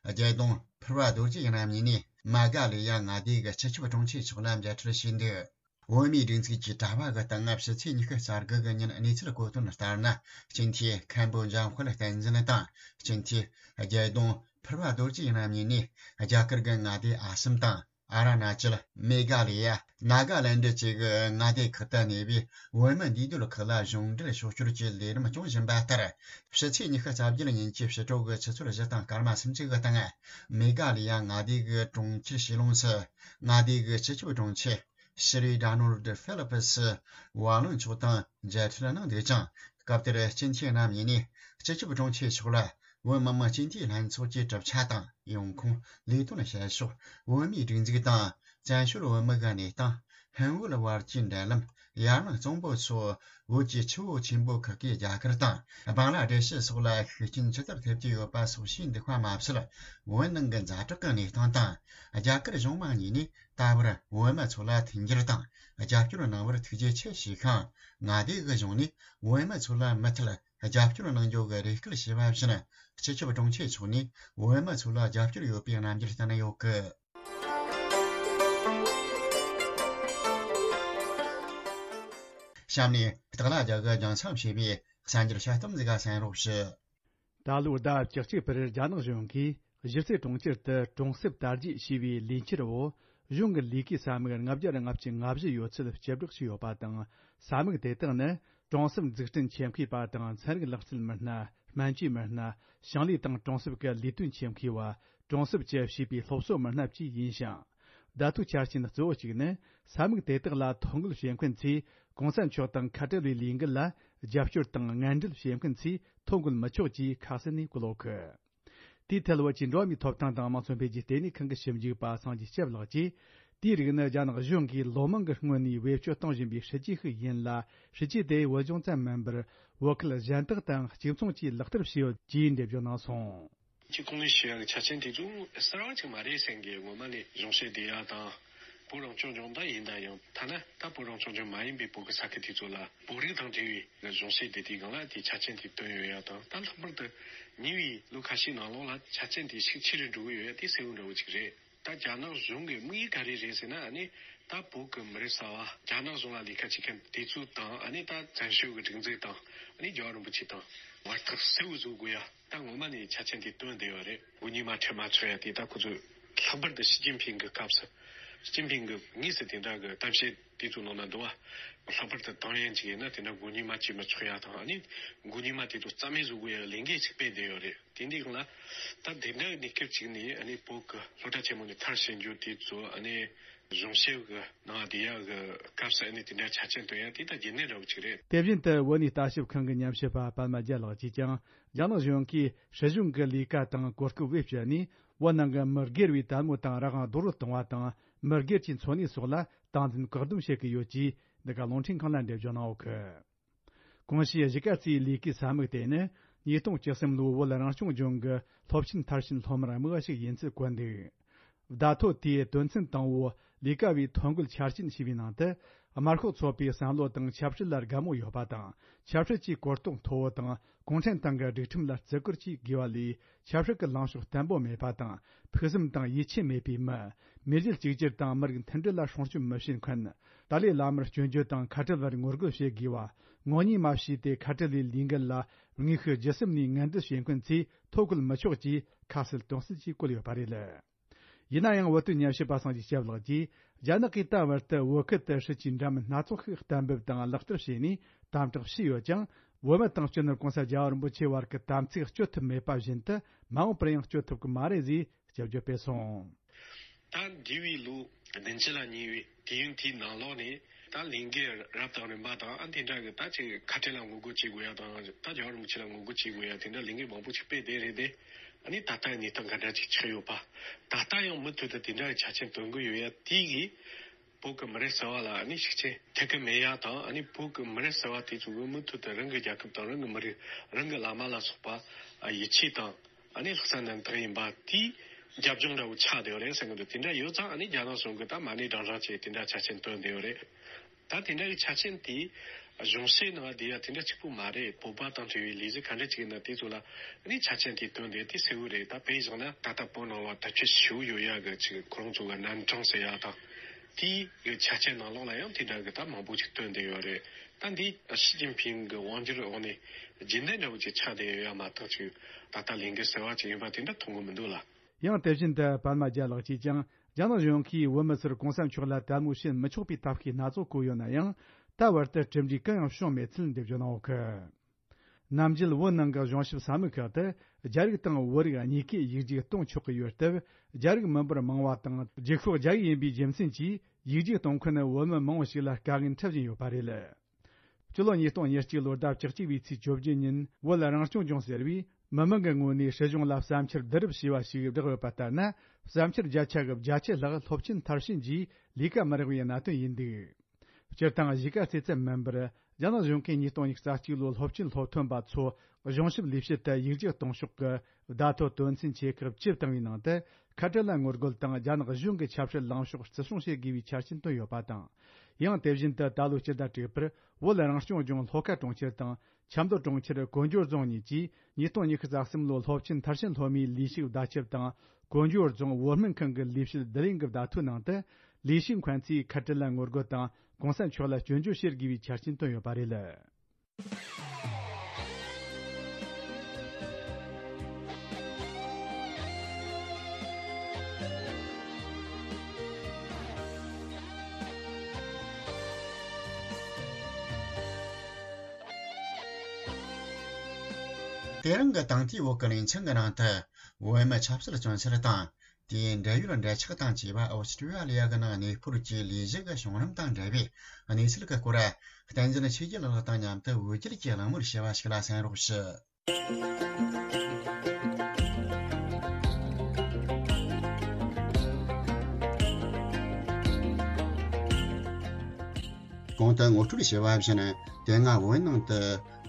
རྒྱལ་ཡོངས་ཕུར་བ་རྡོ་རྗེ་རྣམ་གཉིས་ནས་མེ་ག་ལི་ཡ་མངའ་སྡེ་གི་སྤྱི་ཁྱབ་དྲུང་ཆེ་མཆོག་ལ་མཇལ་འཕྲད་བྱས་འདུག་བོད་མིའི་སྒྲིག་འཛུགས་ཀྱི་དྲ་བ་གི་སྟེང་ཕྱི་ཚེས་ཉི་ཤུ་རྩ་དགུ་གི་ཉིན་གནས་ཚུལ་གོ་དོན་ལྟར་ན། སྤྱི་འཐུས་མཁན་པོ་འཇམ་དཔལ་བསྟན་འཛིན་དང་། སྤྱི་འཐུས་རྒྱལ་ཡོངས་ཕུར་བ་རྡོ་རྗེ་རྣམ་གཉིས་ནས་རྒྱ་གར་གྱི་མངའ་སྡེ་ཨ་སམ་དང་། ཨ་ར་ན་ཅལ། མེ་ག་ལི་ཡ། ནཱ་ག་ལན་ཌི་བཅས་ཀྱི་མངའ་སྡེ་ཁག་ཏུ་གནས་པའི་བོད་མི་འདུས་སྡོད་ཁག་ལ་གཞུང་འབྲེལ་ཕྱོགས་བསྐྱོད་ཀྱི་ལས་རིམ་སྐྱོང་བཞིན་པ་ལྟར། ཕྱི་ཚེས་ཉི་ཤུ་རྩ་བརྒྱད་ཉིན་གྱི་ཕྱི་དྲོ་གི་ཆུ་ཚོད་བཞི་དང་སྐར་མ་སུམ་ཅུ་གི་སྟེང་། མེ་ག་ལི་ཡ་མངའ་སྡེ་གི་གྲོང་ཁྱེར་ཤི་ལོང་སུ། མངའ་སྡེ་གི་སྤྱི་ཁྱབ་དྲུང་ཆེ། ཤི་རི་ཌ་ནོལ་ཌི་ཧྥི་ལི་པི་སི་ཝ་ལུན་མཆོག་དང་མཇལ་འཕྲད་གནང་འདུག་ཅིང་། སྐབས་དེར་སྤྱི་འཐུས་རྣམ་གཉིས་ནས་སྤྱི་ཁྱབ་དྲུང་ཆེ་མཆོག་ལ་བོད་མི་མང་སྤྱི་འཐུས་ལྷན་ཚོགས་ཀྱི་གྲུབ་ཆ་དང་ཡོང་ཁུངས། ལས་དོན་བྱེད་ཕྱོགས། བོད་མིའི་སྒྲིག་འཛུགས་དང་བཙན་བྱོལ་བོད་མི་གི་གནས་སྟངས། ཧིན་བོད་བར་གྱི་འབྲེལ་ལམ། ཡར་ནང་གཙང་པོ་སོགས། བོད་ཀྱི་ཆུ་བོ་ཆེན་པོ་ཁག་གི་རྒྱ་གར་དང་བང་ལ་དེ་ཤི་སོགས་ལ་ཤུགས་རྐྱེན་ཇི་ལྟར་ཐེབས་ཀྱི་ཡོད་པ་སོགས་ཤེས་འདུག་པ་མ་ཟད། བོད་ནང་གི་ཛ་དྲག་གི་གནས་སྟངས་དང་། རྒྱ་གར་གཞུང་མང་གཉིས་ནས་ད་བར་བོད་མི་ཚོ་ལ་མཐུན་འགྱུར་དང་རྒྱབ་སྐྱོར་གནང་བར་ཐུགས་རྗེ་ཆེ་ཞུས་ཤིང་། མངའ་སྡེ་གི་གཞུང་ནས་བོད་མི་ཚོ་ལ་མུ་མཐུད་རྒྱབ་སྐྱོར་གནང་རྒྱུ་གི་རེ་སྐུལ་ཞུས་པ་བཞིན། སྤྱི་ཁྱབ་དྲུང་ཆེ་མཆོག་ནས་བོད་མི་ཚོ་ལ་རྒྱབ་སྐྱོར་ཡོད་པའི་རྣམ་འགྱུར་བསྟན་ཡོད་སྐད། གཤམ་ནས་སྟག་ལྷ་རྒྱལ་གྱི་རྒྱང་མཚམས་བྱས་པའི་གསར་འགྱུར་དཔྱད་གཏམ་ཟིག་ག་གསན་རོགས་ཞུ། ད་ལོའི་ཟླ་བཅུ་གཅིག་པར་རྒྱ་ནག་གཞུང་གིས་གཞིས་རྩེ་གྲོང་ཁྱེར་དུ་གྲོང་གསེབ་དར་རྒྱས་ཞེས་པའི་ལས་འཆར་འོག་གཞུང་གི་ལས་ཀའི་ས་མིག་ལྔ་བརྒྱ་ལྔ་བཅུ་ང་བཞི་ཡོད་ཚད་སྤྱི་བསྒྲགས་བྱས་ཡོད་པ་དང་། ས་མིག་དེ་དག་ནི་གྲོང་གསེབ་འཛུགས་སྐྲུན་ཆེད་མཁས་པ་དང་ཚན་རིག་ལག་རྩལ་མི་སྣ། སྨན་བཅོས་མི་སྣ། ཞིང་ལས་དང་གྲོང་གསེབ་ཀྱི་ལས་དོན་ཆེད་མཁས་པ། གྲོང་གསེབ་ཀྱི་བྱིས་པའི་སློབ་གསོ་མི་སྣ་བཅས་ཡིན་ཞིང་། བརྡ་ཐོའི་ཆ་རྐྱེན་གཙོ་བོ་གཅིག་ནི། ས་མིག་དེ་དག་ལ་ཐོ་འགོད་བྱེད་མཁན་ཚོས་གོང་ས་མཆོག་དང་ཁ་བྲལ་བའི་ལས་འགུལ་ལ་རྒྱབ་སྐྱོར་དང་ངན་འབྲེལ་བྱེད་མཁན་ཚོས་ཐོ་འགོད་མི་ཆོག་ཅེས་ཁ་གསལ་ནས་བཀོད་ཡོད་གི། དེའི་ཐད་བོད་ཀྱི་འགྲོ་བ་མིའི་ཐོབ་ཐང་དང་དམངས་གཙོ་འཕེལ་རྒྱས་ལྟེ་གནས་ཁང་གི་ཞིབ་འཇུག་པ་སངས་རྒྱས་སྐྱབས་ལགས་ཀྱིས། དེའི་རིགས་ནི་རྒྱ་ནག་གཞུང་གིས་ལོ་མང་གི་སྔོན་ནས་བེད་སྤྱོད་གཏོང་བཞིན་པའི་སྲིད་ཇུས་ཤིག་ཡིན་ལ། སྲིད་ཇུས་དེ་བོད་ལྗོངས་ཙམ་མིན་པར། བོད་ཁུལ་གཞན་དག་དང་གཅིག་མཚུངས་ཀྱིས་ལག་བསྟར་བྱས་ཡོད་ཅེས་འགྲེལ་བརྗོད་གནང་སོང་། ཁྱེད་གོང་ནས་ཞུ་ཡག་གི་ཆ་རྐྱེན་དེ་ཚོ་གསར་བ་ཅིག་མ་རེད་བསམ་གི། སྔོན་མ་ནས་གཞུང་བཤད་བསྡད་ཡག་དང་། བོད་རང་སྐྱོང་ལྗོངས་ད་ཡིན་ད་ཡང་ཐ་ན་ད་བོད་རང་སྐྱོང་ལྗོངས་མ་ཡིན་པའི་བོད་ཀྱི་ས་ཁུལ་དེ་ཚོ་ལ་བོད་རིགས་དང་འབྲེལ་བའི་གཞུང་བཤད་བསྡད་དུས་སྒང་ལ་དེའི་ཆ་རྐྱེན་དེ་བཏོན་ཡོད་ཡག་དང་། ད་ལྷག་པར་དུ་ཉེ་བའི་ལོ་ཁ་ཤས་ནང་ལོགས་ལ་ཆ་རྐྱེན་དེ་ཤུགས་ཆེ་རུ་འགྲོ་གི་ཡོད་ཡག་དེ་གསལ་བོ་འདྲ་བོ་ཅིག་རེད། ད་རྒྱ་ནག་གཞུང་གི་དམིགས་ཡུལ་ག་རེ་རེད་ཟེར་ན། ཨ་ནི་ད་བོད་ཀྱི་མི་རབས་གསར་བ་རྒྱ་ནག་གཞུང་ལ་ལས་ཀ་བྱེད་མཁན་དེ་ཚོ་དང་། ཨ་ནི་ད་བཙན་བྱོལ་གྱི་སྒྲིག་འཛུགས་དང་། ཨ་ནི་རྒྱལ་བ་རིན་པོ་ཆེ་དང་བར་ཐག་གསལ་བོ་བཟོ་དགོས་ཡ། ད་ངོ་མ་ནས་ཆ་རྐྱེན་དེ་བཏོན་བསྡད་ཡོད་རེད། མགོ་གཉིས་མ་ཁྲིད་མ་ཚོར་ཡ་དེ་ད་ཁོ་ཚོས་ལྷག་པར་དུ་ཞི་ཅིན་ཕིང་གི་སྐབས་སུ་ ཞི་ཅིན་ཕིང་གིས་དངོས་སུ་དེ་འདྲ་གི་གཏམ་བཤད་དེ་ཚོ་ནང་ན་འདུག་བ། ལྷག་པར་དུ་ཏང་ཡོན་ཅིག་ཡིན་ན་དེ་འདྲ་མགོ་གཉིས་མ་བྱས་མི་ཆོག་ཡ་དང་། ཨ་ནི་མགོ་གཉིས་མ་དེ་ཚོ་རྩ་མེད་བཟོ་དགོས་ཡ་ལས་འགན་ཅིག་སྤེལ་བསྡད་ཡོད་རེད། དེ་འདྲའི་སྒང་ལ་ད་དེ་འདྲ་གི་གནས་སྐབས་ཅིག་ནས། ཨ་ནི་བོད་ཀྱི་སློབ་གྲྭ་ཆེན་མོ་ནས་མཐར་ཕྱིན་རྒྱུ་དེ་ཚོ། ཨ་ནི་གཞུང་ཞབས་ཀྱི་ནང་བསྡད་ཡ་གི་སྐབས་སུ་ཨ་ནི་དེ་འདྲ་ཆ་རྐྱེན་བཏོན་ཡ་དེ་ད་རྒྱུན་ལྡན་འདྲ་བོ་ཅིག་རེད། དེ་བཞིན་དུ་བོད་གནས་ལྟ་ཞིབ་ཁང་གི་ཉམས་ཞིབ་པ་པདྨ་རྒྱལ་ལགས་ཀྱིས་ཀྱང་རྒྱ་ནག་གཞུང་གིས་སྲིད་གཞུང་གི་ལས་ཀ་དང་གོ་སྐབས་བེད་སྤྱད་ནས་བོད་ནང་གི་མི་སྒེར་བའི་དལ་མོ་དང་རང་དབང་རྡོག་རོལ་གཏོང་བ་དང་། མི་སྒེར་གྱི་འཚོ་གནས་སོགས་ལ་སྟངས་འཛིན་བཀག་སྡོམ་བྱེད་ཀྱི་ཡོད་ཅེས་འདི་ག་རླུང་འཕྲིན་ཁང་ལ་འགྲེལ་བརྗོད་གནང་ཡོད་གི། གོང་ཞུས་གཞིས་ཀ་རྩེའི་ལས་ཀའི་ས་མིག་དེ་ནི་ཉིས་སྟོང་བཅུ་གསུམ་ལོའི་བོད་རང་སྐྱོང་ལྗོངས་ཀྱི་སློབ་ཆེན་མཐར་ཕྱིན་སློབ་མར་དམིགས་པ་ཞིག་ཡིན་ཚུལ་བཀོད་འདུག། བརྡ་ཐོ་དེའི་དོན་ཚན་དང་པོ། ལས་ཀ་བའི་ཐོ་འགོད་འཆར་ཅན་ཞེས་པའི་ནང་དུ། དམར་ཤོག་ཚོགས་པའི་བསམ་བློ་དང་ཆབ་སྲིད་ལ་དགའ་མོས་ཡོད་པ་དང་། ཆབ་སྲིད་ཀྱི་གོ་རྟོགས་མཐོ་བོ་དང་། གུང་ཁྲན་ཏང་གི་སྒྲིག་ཁྲིམས་ལ་བརྩི་བཀུར་བཅས་དགོས་པ་ལས། ཆབ་སྲིད་ཀྱི་ལངས་ཕྱོགས་བརྟན་པོ་མེད་པ་དང་། ཕུགས་བསམ་དང་ཡིད་ཆེས་མེད་པའི་མི། མི་རྒྱུད་གཅིག་གྱུར་དང་མི་རིགས་མཐུན་སྒྲིལ་ལ་སྲུང་སྐྱོབ་མི་བྱེད་མཁན། ཏཱ་ལའི་བླ་མར་སྐྱོན་བརྗོད་དང་ཁ་བྲལ་བར་ངོ་རྒོལ་བྱེད་དགོས་པ། ངོ་གཉིས་མ་བྱས་ཏེ་ཁ་བྲལ་ལས་ལས་འགུལ་ལ་དངོས་ཤུགས་བརྒྱུད་གསུམ་ནས་ངན་འབྲེལ་བྱེད་མཁན་ཚོས་ཐོ་འགོད་མི་ཆོག་ཅེས་ཁ་གསལ་དོན་གསལ་གྱིས་བཀོད་ཡོད་པ་རེད། ཡིན་ན་ཡང་བོད་དོན་ཉམས་ཞིབ་པ་སངས་རྒྱས་སྐྱབས་ལགས་ཀྱིས། རྒྱ་ནག་གིས་ད་བར་དུ་བོད་ཁུལ་དུ་སྲིད་ཇུས་འདྲ་མིན་སྣ་ཚོགས་ཤིག་གཏན་འབེབས་དང་ལག་བསྟར་བྱས་ནས་དམ་དྲག་བྱས་ཡོད་ཀྱང་། བོད་མི་དང་སྤྱི་ནོར་གོང་ས་རྒྱལ་བ་རིན་པོ་ཆེ་བར་གྱི་དམ་ཚིག་གཅོད་ཐུབ་མེད་པ་བཞིན་དུ། མ་འོངས་པར་ཡང་གཅོད་ཐུབ་ཀྱི་མ་རེད་ཅེས་སྐྱབས་བརྗོད་སྤེལ་སོང་། ད་འདས་པའི་ལོ་བདུན་ཅུ་ལ་ཉེ་བའི་དུས་ཡུན་དེའི་ནང་ལོགས་ནས། ད་ལས་འགུལ་རབ་དང་རིམ་པ་དང་། ཨ། དེ་འདྲ་གི་ད་ཅིག་ཁ་བྲལ་ལ་ངོ་རྒོལ་བྱེད་དགོས་ཡ་དང་། ད་རྒྱལ་བ་རིན་པོ་ཆེ་ལ་ངོ་རྒོལ་བྱེད་དགོས་ཡ། དེ་འདྲ་ལས་འགུལ་མང་པོ་ཞིག་སྤེལ་བསྡད་རེད་དེ། ཨ་ནི་ད་ལྟའི་གནས་སྟངས་ག་འདྲ་ཅིག་ཆགས་ཡོད་པ། ད་ལྟ་ཡང་མུ་མཐུད་དུ་དེ་འདྲ་གི་ཆ་རྐྱེན་བཏོན་གི་ཡོད་ཡ་དེ་གིས། བོད་ཀྱི་མི་རབས་གསར་བ་ལ་ཨ་ནི་ཤུགས་རྐྱེན་ཐེབས་ཀྱི་མེད་ཡ་དང་། ཨ་ནི་བོད་ཀྱི་མི་རབས་གསར་བ་དེ་ཚོ་གིས་མུ་མཐུད་དུ་རང་གི་རྒྱལ་ཁབ་དང་། རང་གི་མི་རིགས། རང་གི་བླ་མ་ལ་སོགས་པ་ཡིད་ཆེས་དང་། ཨ་ནི་ལྷག་བསམ་རྣམ་དག་ཡིན་པ་དེའི་རྒྱབ་ལྗོངས་འདྲ་བོ་ཆགས་བསྡད་ཡོད་རེད་བསམ་གི་འདུག། དེ་འདྲ་ཡོད་ཙང་། ཨ་ནི་རྒྱ་ནག་གཞུང་གིས་ད་མ་ཎི་བགྲང་བགྲང་བྱས་དེ་འདྲ་ཆ་རྐྱེན་བཏོན་བསྡད་ཡོད་རེད། ད་དེ་འདྲ་གི་ཆ་རྐྱེན་དེ་གཞུང་ཞབས་ནང་བསྡད་ཡ་དེ་འདྲ་གཅིག་པུ་མ་རེད། བོད་པ་དང་འབྲེལ་བའི་ལས་གཞི་ག་འདྲ་ཅིག་ཡིན་ན་དེ་ཚོ་ལ་ཨ་ནི་ཆ་རྐྱེན་དེ་བཏོན་བསྡད་དེ་གསལ་བོ་རེད། ད་དཔེ་བཞག་ན་ད་ལྟ་བོད་ནང་ལ་དར་ཁྱབ་ཞེ་པོ་ཡོད་ཡ་གི་ཅིག་ཁོ་རང་ཚོ་གི་རྣམ་གྲངས་ཟེར་ཡ་དང་། དེའི་གི་ཆ་རྐྱེན་ནང་ལོགས་ལ་ཡང་དེ་འདྲ་གི་ད་མང་པོ་ཅིག་བཏོན་བསྡད་ཡོད་རེད། ད་འདི་ཞི་ཅིན་ཕིང་གི་དབང་སྒྱུར་འོག་ནས་རྒྱུན་ལྡན་འདྲ་བོ་ཅིག་ཆགས་བསྡད་ཡོད་ཡ་མ་གཏོགས། ཅིག་ད་ལྟ་ལས་འགུལ་གསར་བ་ཅིག་ཡིན་པ་དེ་འདྲ་མཐོང་གི་མི་འདུག་ལ། ཡང་དེ་བཞིན་དུ་པདྨ་རྒྱལ་ལགས་ཀྱིས་ཀྱང་རྒྱ་ནག་གཞུང་གིས་བོད་མི་ཚོར་གོང་ས་མཆོག་ལ་དལ་མོ་བྱེད་མི་ཆོག་པའི་ཐབས་ཤེས་སྣ་ཚོགས་བཀོད་ཡོད་ན་ཡང་། ད་བར་དུ་གྲུབ་འབྲས་གང་ཡང་བྱུང་མེད་ཚུལ་འགྲེལ་བརྗོད་གནང་ཡོད་གི། ནམ་རྒྱུན་བོད་ནང་གི་གཞུང་ཞབས་ས་མིག་ཁག་ཏུ་རྒྱ་རིགས་དང་བོད་རིགས་གཉིས་ཀས་ཡིག་རྒྱུགས་གཏོང་ཆོག་གི་ཡོད་སྟབས། རྒྱ་རིགས་མི་འབོར་མང་བ་དང་རྒྱུགས་ཤོག་རྒྱ་ཡིག་ཡིན་པའི་རྒྱུ་མཚན་གྱིས་ཡིག་རྒྱུགས་གཏོང་མཁན་བོད་མི་མང་བོ་ཞིག་ལ་དཀའ་ངལ་འཕྲད་བཞིན་ཡོད་པ་རེད། སྤྱི་ལོ་ཉིས་སྟོང་ཉེར་གཅིག་ལོ་ཟླ་བཅུ་གཅིག་པའི་ཚེས་བཅོ་བརྒྱད་ཉིན། བོད་རང་སྐྱོང་ལྗོངས་ཟེར་བས་མི་མང་གི་ངོས་ནས་སྲིད་གཞུང་ལ་བསམ་འཆར་བསྡུ་རུབ་བྱས་པ་ཞིག་བསྒྲགས་ཡོད་པ་ལྟར་ན། བསམ་འཆར་བརྒྱ་ཆ་གི་བརྒྱད་ཅུ་ལྷག་སློབ་ཆེན་མཐར་ཕྱིན་རྗེས་ལས་ཀ་མི་རག་པའི་གནད་དོན་ཡིན་འདུག། སྤྱིར་བཏང་གཞིས་ཀ་རྩེ་ཙམ་མིན་པར། རྒྱ་ནག་གཞུང་གིས་ཉིས་སྟོང་ཉི་ཤུ་རྩ་གཅིག་ལོའི་སློབ་ཆེན་སློབ་ཐོན་པ་ཚོ་གཞུང་ཞབས་ལས་བྱེད་དུ་ཡིག་རྒྱུགས་གཏོང་ཕྱོགས་ཀྱི་བརྡ་ཐོ་དོན་ཚན་ཆེ་ཁག་བཅུ་བཏང་བའི་ནང་དུ། ཁ་བྲལ་ལ་ངོ་རྒོལ་དང་རྒྱ་ནག་གཞུང་གི་ཆབ་སྲིད་ལངས་ཕྱོགས་བརྩི་སྲུང་བྱེད་དགོས་པའི་ཆ་རྐྱེན་བཏོན་ཡོད་པ་དང་། ཡང་དེ་བཞིན་དུ་ད་ལོའི་སྤྱི་ཟླ་དྲུག་པར་བོད་རང་སྐྱོང་ལྗོངས་ལྷོ་ཁ་གྲོང་ཁྱེར་དང་ཆབ་མདོ་གྲོང་ཁྱེར་གོ་འཇོ་རྫོང་གཉིས་ཀྱིས་ཉིས་སྟོང་ཉི་ཤུ་རྩ་གསུམ་ལོའི་སློབ་ཆེན་མཐར་ཕྱིན་སློབ་མའི་ལས་ཞུགས་བརྡ་ཁྱབ་དང་། གོ་འཇོ་རྫོང་བོད་སྨན་ཁང་གི་ལས་བྱེད་བསྡུ་ལེན་གྱི་བརྡ་ཐོའི་ནང་དུ། ལས་ཞུགས་མཁན་ཚོས་ཁ་བྲལ་ལ་ངོ་རྒོལ་དང་གོང་ས་མཆོག་ལ་སྐྱོན་བརྗོད་བྱེད་དགོས་པའི་ཆ་རྐྱེན་བཏོན་ཡོད་པ་རེད། དེ་རིང་གི་དང་ཐོག་བོད་ཀྱི་གླིང་ཆེན་གྱི་ནང་དུ། བོད་མི་ཆབ་སྲིད་བཙོན་ཟུར་དང་། དེའི་འབྲེལ་ཡོད་འབྲེལ་ཆགས་དང་བཅས་པ་ཨོ་སི་ཀྲི་ཡ་ལི་ཡ་གི་ནང་གནས་སྤོར་གྱི་ལས་གཞི་གི་བྱུང་རིམ་དང་འབྲེལ་བའི་གནས་ཚུལ་གྱི་སྐོར། བསྟན་འཛིན་ཆོས་རྒྱལ་ལགས་དང་མཉམ་དུ་འོད་སྐྱིད་ཀྱིས་གླེང་མོལ་བྱས་པ་ཞིག་ལ་གསན་རོགས་ཞུ། གོང་དུ་ངོ་སྤྲོད་བྱས་པ་བཞིན། དེ་སྔ་བོད་ནང་དུ་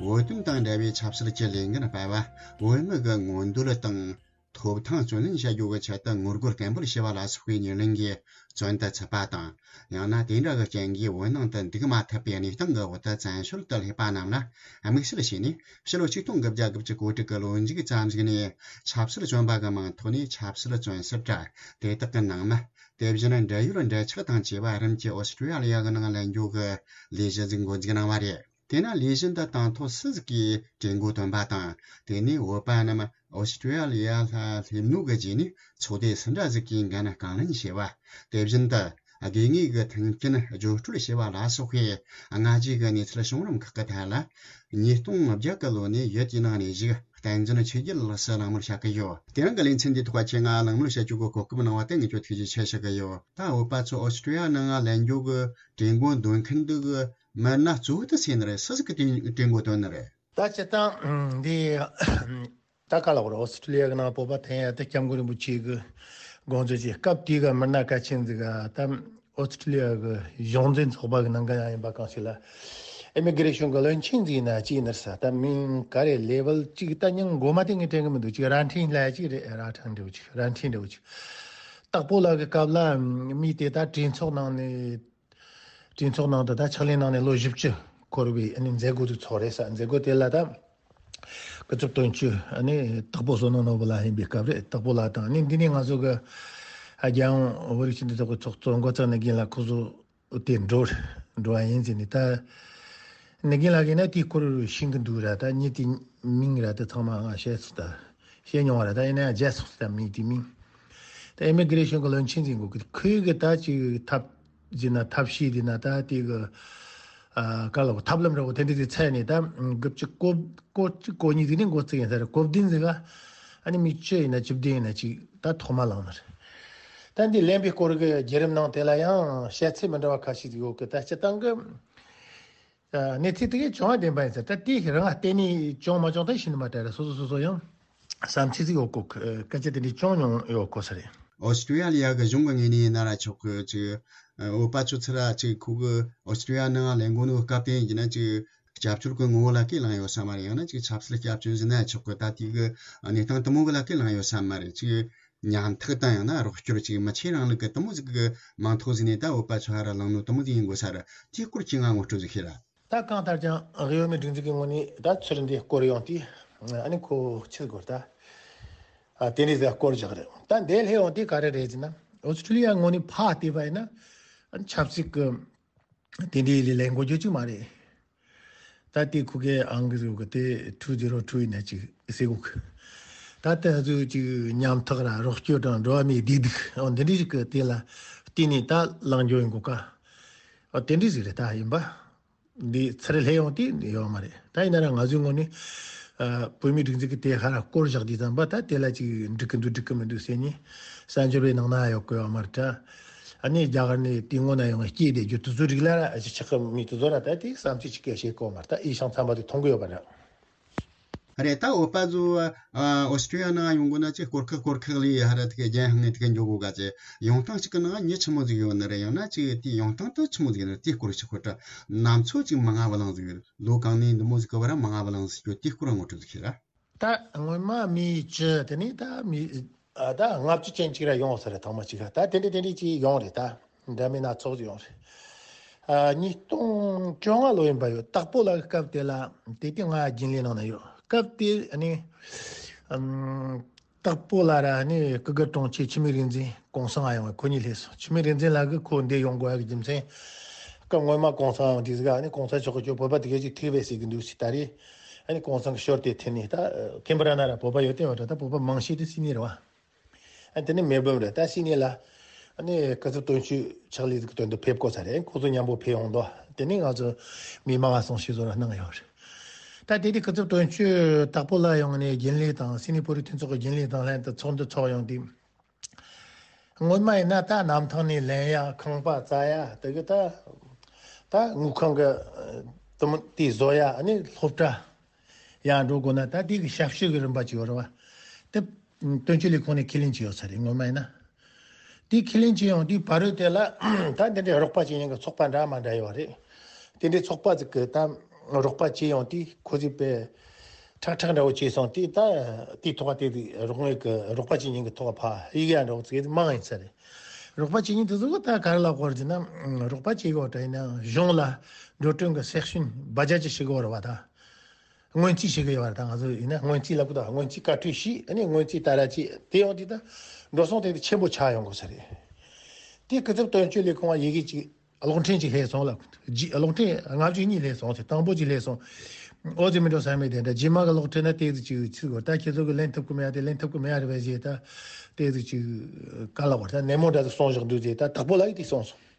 བོད་དོན་དང་འབྲེལ་བའི་ཆབ་སྲིད་ཀྱི་ལས་འགན་སྤེལ་བ། བོད་མི་གི་མངོན་འདོད་དང་། ཐོབ་ཐང་བརྩོན་ལེན་བྱ་རྒྱུ་གི་ཆེད་དུ་ངོ་རྒོལ་བརྟན་པོར་བྱས་པ་ལ་སོགས་པའི་ཉེར་ལེན་གྱིས་བཙོན་དུ་ཚུད་པ་དང་། ཡང་ན་དེ་འདྲ་གི་རྐྱེན་གྱིས་བོད་ནང་དུ་འདུག་མ་ཐུབ་པའི་གནས་སྟངས་ཀྱི་འོག་ཏུ་བཙན་བྱོལ་དུ་སླེབས་པ་རྣམས་ལ་དམིགས་བསལ་བྱས་ནས། ཕྱི་ལོ་ཆིག་སྟོང་དགུ་བརྒྱ་དགུ་བཅུ་གོ་དྲུག་གི་ལོ་མཇུག་ཙམ་ཞིག་ནས་ཆབ་སྲིད་བཙོན་པ་གི་མིང་ཐོག་ནས་ཆབ་སྲིད་བཙོན་ཟུར་དྲ་དེ་དག་གི་ནང་མི། དེ་བཞིན་འབྲེལ་ཡོད་འབྲེལ་ཆགས་དང་བཅས་པ་རིམ་གྱིས་ཨོ་སི་ཀྲི་ཡ་ལི་ཡ་གི་ནང་ལེན་རྒྱུ་གི་ལས་གཞི་ཟིག་འགོ་འཛུགས་གནང་བ་རེད། དེས་ན་ལས་གཞི་འདི་དང་ཐོག་སུ་ཟིག་གིས་གྲོས་འགོ་བཏོན་པ་དང་། དེ་ནས་བོད་པ་རྣམས་ཨོ་སི་ཀྲི་ཡ་ལི་ཡ་ལ་སླེབས་ནོ་གི་རྗེས་ནས་ཚོགས་སྡེ་སུ་འདྲ་ཟིག་གིས་འགན་རྐང་ལེན་བྱས་པ། དེ་བཞིན་དུ་ དགོས་ངེས་ཀྱི་མཐུན་རྐྱེན་བརྗོད་སྤྲོད་བྱས་པ་ལ་སོགས་པའི་སྔ་རྗེས་ཀྱི་གནས་ཚུལ་བྱུང་རིམ་ཁག་གི་ཐད་ལ། ཉིས་སྟོང་བརྒྱད་ཀྱི་ལོ་ནས་ཡུལ་དེའི་ནང་ནས་བཞུགས་བསྟན་འཛིན་ཆོས་རྒྱལ་ལགས་སུ་གླེང་མོལ་བྱ་གི་ཡོད། དེ་རིང་གི་ལེ་ཚན་འདིའི་ཐོག་ཁྱེད་ང་གླེང་མོལ་བྱ་རྒྱུ་གི་གོ་སྐབས་གནང་བ་དེ་ངས་ཁྱོད་ཐུགས་རྗེ་ཆེ་ཞུ་གི་ཡོད། ད་བོད་པ་ཚོ་ཨོ་སི་ཀྲི་ཡ་ནང་ལ་ལེན་རྒྱུ་གི་གྲོས་འགོ་འདོན་མཁན་འདི་གི་མི་སྣ་གཙོ་བོ་དེ་སུ་ཡིན་ནི་རེད། སུ་ཟིག་གིས་དེ་གྲོས་འགོ་འདོན་ནི་རེད། ད་སྤྱིར་བཏང་འདི་ད་ག་ལ་བར་ཨོ་སི་ཀྲི་ལི་ཡ་གི་ནང་བོད་པ་འཐེན་ཡ་དེ་སྐྱབས་མགོན་རིན་པོ་ཆེ་གི་དགོངས་ཚུལ་གྱི་སྐབས་དེའི་གི་མི་སྣ་གལ་ཆེན་ཟིག་ག་ད་ཨོ་སི་ཀྲི་ལི་ཡ་གི་གཞུང་འཛིན་ཚོགས་པ་གི་ནང་གི་ཡང་ཡིན་པ་གང་ཞིག་ལ་ཨི་མི་གི་རེ་ཤོན་གི་བློན་ཆེན་ཟིག་ཡིན་ན་ཅི་ཡིན་ནར་ས། ད་མིང་ག་རེ་ལེ་ཝལ་གཅིག་ད་མིང་མགོ་མ་དེ་ངས་དྲན་གི་མི་འདུག་གཅིག་རྭ་འཕྲིན་ལ་གཅིག་རེད། རྭ་ཕྲན་འདྲ་བོ་གཅིག་རྭ་འཕྲིན་འདྲ་བོ་གཅིག་སྟག་པོ་ལགས་གི་སྐབས་ལ་མི་དེ་ད་གྲོས་ཚོགས་ནང་ནས། གྲོས་ཚོགས་ནང་དུ་ད་ཕྱག་ལས་གནང་ནས་ལོ་བཞི་བཅུ་འཁོར་བའི་ཨ་ནི་མཛད་སྒོ་དེ་ཚོགས་རེད་ས། མཛད་སྒོ་དེ་ལ་ད་སྐུ་ཚབ་དོན་གཅོད་ཨ་ནི་སྟག་པོ་བསོད་ནམས་ནོར་བུ་ལགས་ཡིན་པའི་སྐབས་རེད། སྟག་པོ་ལགས་དང་ཨ་ནི་འདི་ནས་ང་ཚོ་གི་རྒྱལ་ཡོངས་བོད་རིགས་སྤྱི་མཐུན་ཚོགས་པའི་ཚོགས་གཙོ་མགོ་བརྩེགས་ནི་རྒན་ལགས་ཁོ་ཚོ་དེ་འགྲོ་འགྲོ་བ་ཡིན་ཟེར་ནས། ད་ནི་རྒན་ལགས་ཀྱིས་ན་དེའི་སྐོར་ཤེས་ཀྱི་འདུག་ར། ད་མྱི་དེ་མིང་ར་དེ་ཚང་མ་ང་བཤད་ཚུལ་ད། བཤད་མྱོང་བ་རེད། ད་ཡིན་ན་ཡང་བརྗེད་སོང་ཟེར། ད་མིང་དེ་མིང་། ད་ཨི་མི་གི་རེ་ཤོན་གི་བློན་ཆེན་ཟིག་གོ་གི་ཁོས་གི་ད་ཅིག་ཐབས་ཟིན་ན་ཐབས་ཤེས་དེ་ན་ད་དེ་གི་ཨ་ག་ལ་གོ་ཐབས་ལམ་ར་གོ་དེ་འདྲ་ཟིག་འཚོལ་ནས་ད་གི་ཅིག་གོ་གོ་གཅིག་གོ་གཉིས་ཟིག་ནས་འགོ་བཙུགས་ཡིན་ས་རེད། གོ་བདུན་ཟིག་ག་ཨ་ནི་མི་བཅུ་ཡིན་ན་བཅུ་བདུན་ཡིན་ན་ཅིག་ད་ཐོག་མ་ལངས་ནི་རེད། ད་འདི་ལེན་པའི་སྐོར་གི་བརྒྱུད་རིམ་ནང་དེ་ལ་ཡང་བཤད་ཚུལ་མི་འདྲ་བ་ཁ་ཤས་ཟིག་ཡོད་གི། ད་སྤྱིར་བཏང་གི་གནས་ཚུལ་དེ་གས་བྱུང་བ་བདེན་པ་ཡིན་ཟེར། ད་དེ་རང་བལྟས་ནས་བྱུང་མ་བྱུང་ད་ཤེས་ནི་མ་རེད་ར། སོ་སོ་སོ་སོ་ཡང་བསམ་ཚུལ་ཟིག་ཡོད་གོ། སྐད་ཆ་དེ་འདྲའི་བྱུང་མྱོང་ཡོད་གོ་ས་རེད། ཨོ་སི་ཀྲི་ཡ་ལི་ཡ་གི་གཞུང་གི་ངོས་ནས་ཡིན་ན་ར་ཆོག་གི། ཅིག་བོད་པ་ཚོ་ཚུར་ར་ཅིག་ཁོ་གི་ཨོ་སི་ཀྲི་ཡ་ནང་ལེན་གོ་ནོ་སྐབས་དེ་ཡིན་ན་ཅིག་སྐྱབས་བཅོལ་གི་ངོ་བོ་ལ་ཁས་བླངས་ཡོད་ས་མ་རེད། ཡང་ན་ཅིག་ཆབ་སྲིད་སྐྱབས་བཅོལ་ཟེར་ན་ཆོག་གི། ད་དེ་གི་གནས་སྟངས་དེ་མོ་གི་ལ་ཁས་བླངས་ཡོད་ས་མ་རེད། ཅིག་ཉམ་ཐག་དང་ཡང་ན་རོགས་སྐྱོར་ཅིག་མི་ཆེ་རིང་ལུགས་གི་དེ་མོ་ཟིག་གི་མིང་ཐོགས་ཟིན་ནས་ད་བོད་པ་ཚོ་ཧ་ར་ལངས་ནོ་དེ་མོ་ཟིག་ཡིན་དགོས་ས་རེད། དེའི་སྐོར་ཁྱེད་ང་ངོ་སྤྲོད་ཟིག་ཤེས་ར། ད་གང་ལྟར་ཀྱང་གཡོ་མེད་སྒྲིག་འཛུགས་ཀྱི་ངོས་ནས་ད་ཚུར་འདི་སྐོར་ཡོང་དུས་ཨ་ནི་ཁོ་ཆི་དགོས་ད་ཨ་དེ་འདྲའི་ཟིག་སྐོར་བཞག་རེད། ད་འདི་ལྷེ་ཡོང་དུས་ག་རེ་རེད་ཟེར་ན་ཨོ་སི་ཀྲི་ལི་ཡ་ངོས་ནས་ཕར་བལྟས་པ་ཡིན་ན་ཨ་ནི་ཆབ་སྲིད་ཀྱི་དེ་འདྲའི་ལས་ལས་འགོ་རྒྱུ་ཅིག་མ་རེད། ད་དེ་ཁུ་གེ་ཨང་གི་རུ་གི་དེ་two zero two ཡིན་ན་ཅིག་ཟེར་གོ་གི། ད་དེ་ཚོ་ཅིག་ཉམ་ཐག་ར་རོགས་སྐྱོར་དང་འགྲོ་བ་མིའི་བདེ་སྡུག་འོ་འདི་འདྲ་ཞིག་གི་དེ་ལ་བལྟས་ནས་ད་ལངས་རྒྱུ་ཡིན་གོ་ཀ། འོ་དེ་འདྲ་ཞིག་རེད། ད་ཡིན་པ་འདི་ཚུར་ལྷེ་ཡོང་དུས་ཡོད་མ་རེད། ད་ཡིན་ན་ར་ང་ཚོའི་ངོས་ནས་ཨ་བོད་མིའི་སྒྲིག་འཛུགས་ཀྱི་དེ་ཧ་ར་སྐོར་བཞག་དུས་ཙམ་པ་ད་དེ་ལ་ཅིག་འགྲིག་གི་འདུག་འགྲིག་གི་མི་འདུག་ཟེར་ནས་གསར་འབྱོར་བའི་ནང་ན་ཡོད་གི་ཡོད་མ་རེད་ད། ཨ་ནི་རྒྱ་གར་ནས་དེ་སྔོན་ན་ཡོང་བའི་སྐད་དེ་རྒྱུ་དེ་ཚོ་རིགས་ལ་ར་ཨ་ཅི་ཆགས་གི་མི་དེ་ཚོ་ར་ད་དེ་བསམ་ཚུལ་ཅིག་སྐད་བཤད་གོ་མ་རེད། ད་ཨི་ཤང་ཚང་མ་དེ་མཐོང་གི་ཡོད་པ་རེད། རེད། ད་བོད་པ་ཚོ་ཨ་ཨོ་སི་ཀྲི་ཡ་ནང་ཡོང་དགོས་ན་ཅིག་སྐོར་ཁག་སྐོར་ཁག་ལས་ཧ་ར་དེ་ག་རྒྱན་ཧང་ངེ་དེ་ག་འཇོག་དགོས་ག་ཅེ། ཡོང་སྟངས་ཤིག་གི་ནང་མྱི་ཆི་མོ་ཟིག་ཡོད་ནི་རེད། ཡང་ན་ཅིག་དེ་ཡོང་སྟངས་དེ་ཆི་མོ་ཟིག་ཡོད་ནི་རེད། དེ་སྐོར་ཞིག་ཁོ་ད་ནམ་ཚོད་ཅིག་མི་ང་བ་ལང་ཟིག་ཡོད་རེད། ལོ་གང་ནས་འདི་མོ་ཟིག་གི་བར་མི་ང་བ་ལང་ཟིག་ཡོད། དེ་སྐོར་ངོ་སྤྲོད་ཟིག་ཤེས་ར། ད་སྔོན་མ་མི་བཅུ་དེ་ནས་ད་མི་ཨ་ད་ལྔ་བཅུ་ཅན་ཅིག་ར་ཡོང་ས་རེད། ཐེངས་མ་གཅིག་ར་ད་དེ་འདྲ་དེ་འདྲ་ཅིག་ཡོང་རེད། ད་འདྲ་མིན་སྣ་ཚོགས་ཅིག་ཡོང་རེད། ཨ་ཉིས་སྟོང་བཅོ་ལྔ་ལོ་ཡིན་པ་ཡོད། སྟག་པོ་ལགས་ཀྱི་སྐབས་དེ་ལ་དེ་དུས་ང་རྒྱུན་ལས་ནང་ན་ཡོད། སྐབས་དེ་ཨ་ནི་ཨམ་སྟག་པོ་ལགས་ར་ཨ་ནི་སྐུ་སྒེར་དྲུང་ཆེ་འཆི་མེད་རིག་འཛིན་གུང་སེང་ང་ཡོང་བ། ཁོ་གཉིས་སླེབས་སོང་། འཆི་མེད་རིག་འཛིན་ལགས་ཀྱིས་ཁོ་འདིར་ཡོང་དགོས་ཡག་གི་རྒྱུ་མཚན། སྐབས་སྔོན་མ་གུང་སེང་ཡོང་དུས་ཟིག་ཨ་ནི་གུང་སེང་མཆོག་གིས་ཁྱོད་བོད་པ་དེ་གས་ཅིག་ཐུག་པས་ཟེར་གི་འདུག་ཟེར། ད་རེས་ཨ་ནི་གུང་སེང་གི་ཞོར་དེ་ཐུག་ནས་ད་ཁེམ་པ་ར་ན་ར་བོད་པ་ཡོད་དེ་བ་འདྲ། ད་བོད་པ་མང་ཤོས་དེ་སིད་ནི་རེད་བ། ཨ་དེ་ནས་མེལ་བྷོན་རེད། ད་སིད་ནི་ལ་ཨ་ནི་སྐུ་ཚབ་དོན་གཅོད་ཕྱག་ལས་ཀྱི་དོན་དུ་ཕེབས་དགོས་ས་རེད། ཁོ་ཚོ་མཉམ་པོ་ཕེབས་ཡོང་དོ། དེ་ནས་ང་ཚོ་མི་མང་ང་སོང་ཞིག་བཟོ་ར་གནང་ཡོད་རེད། ད་དེ་དུས་སྐུ་ཚབ་དོན་གཅོད་སྟག་པོ་ལགས་ཡོང་ནས་རྒྱུན་ལས་དང་སིད་ནི་བོད་རིགས་མཐུན་ཚོགས་ཀྱི་རྒྱུན་ལས་དང་ལྷན་དུ་ཚོགས་འདུ་ཚོགས་ཡོང་དུས། སྔོན་མ་ཡིན་ན་ད་གནམ་ཐང་ནས་ལེན་ཡ་ཁང་པ་བཙལ་ཡ་དེ་གི་ད་ད་དངུལ་ཁང་གི་དུམ་དེ་བཟོ་ཡ་ཨ་ནི་སློབ་གྲྭ་ཡང་འགྲོ་དགོས་ན་ད་དེ་གི་ཞབས་ཞུ་གི་རིམ་པ་ཅིག་ཡོད་རེད་བ། དེ་དོན་གཅོད་ལས་ཁུངས་ནས་ཁས་ལེན་བྱས་ཡོད་ས་རེད། སྔོན་མ་ཡིན་ན་དེ་ཁས་ལེན་བྱས་ཡོང་དུས་ཕ་རོལ་དེ་ལ་ད་འདི་འདྲའི་རོགས་པ་བྱེད་མཁན་གི་ཚོགས་པ་འདྲ་མ་འདྲ་ཡོད་རེད། དེ་འདྲའི་ཚོགས་པ་ཅིག་གི་ད་རོགས་པ་བྱེད་ཡོང་དུས་ཁོ་ཚོས་པའི་ཁྲག་ཁྲག་འདྲ་བོ་བྱས་སོང་དུས་ད་དེའི་ཐོག་དེ་དུས་རོགས་དངུལ་གི་རོགས་པ་བྱེད་མཁན་གི་ཐོག་ཕ་ཡིག་ཡ་འདྲ་བོ་ཚིག་མང་ཡིན་ས་རེད། རོགས་པ་བྱེད་མཁན་དེ་ཚོ་གི་ད་ག་རེ་ལབ་དགོས་རེད་ཟེར་ན་རོགས་པ་བྱེད་དགོས་དྲ་ཡིན་ན་གཞུང་ལ་འགྲོ་གྲོན་གི་སེག་ཤན་བ་ཇ་ཅི་ཞིག་དགོས་རེད་བ། ད་སྔོན་རྩིས་བྱེད་གི་ཡོད་རེད། ད་ང་ཚོ་ཡིན་ན་སྔོན་རྩིས་ལབ་གི་ད་སྔོན་རྩིས་བཀའ་འཁྲོལ་ཞུས། ཨ་ནི་སྔོན་རྩིས་ད་ར་ཅི་དེ་ཡོང་དུས་ད་འགྲོ་སོང་དེ་དུས་ཆེན་པོ་ཆགས་ཡོང་དགོས་ས་རེད། དེ་སྐུ་ཚབ་དོན་གཅོད་ལས་ཁུངས་ལ་ཡི་གེ་ཅིག་གློག་འཕྲིན་ཅིག་སླེབས་སོང་ལ། རྗེས་གློག་འཕྲིན་ལྔ་བཅུ་གཉིས་སླེབས་སོང་ཟེར། དང་པོ་ཅིག་སླེབས་སོང་། ཨོ་ཙི་མི་འགྲོ་ས་མེད་དེ་འདྲ། རྗེས་མ་གི་གློག་འཕྲིན་ན་ཏོག་ཙམ་ཅིག་ཚིག་གོ་ད་ཁྱེད་ཚོ་གི་ལེན་ཐུབ་ཀི་མེད་ཡ་དེ་ལེན་ཐུབ་ཀི་མེད་ཡ་རེད་པས་ཞེས་ད་ཏོག་ཙམ་ཅིག་ག་ལ་བར་ད་ནན་མོ་འདྲ་ཟིག་གསུངས་བཞག་འདུག་ཟེར། ད་དྭགས་པོ་ལ་ཡི་དེ་གསུངས་སོང་།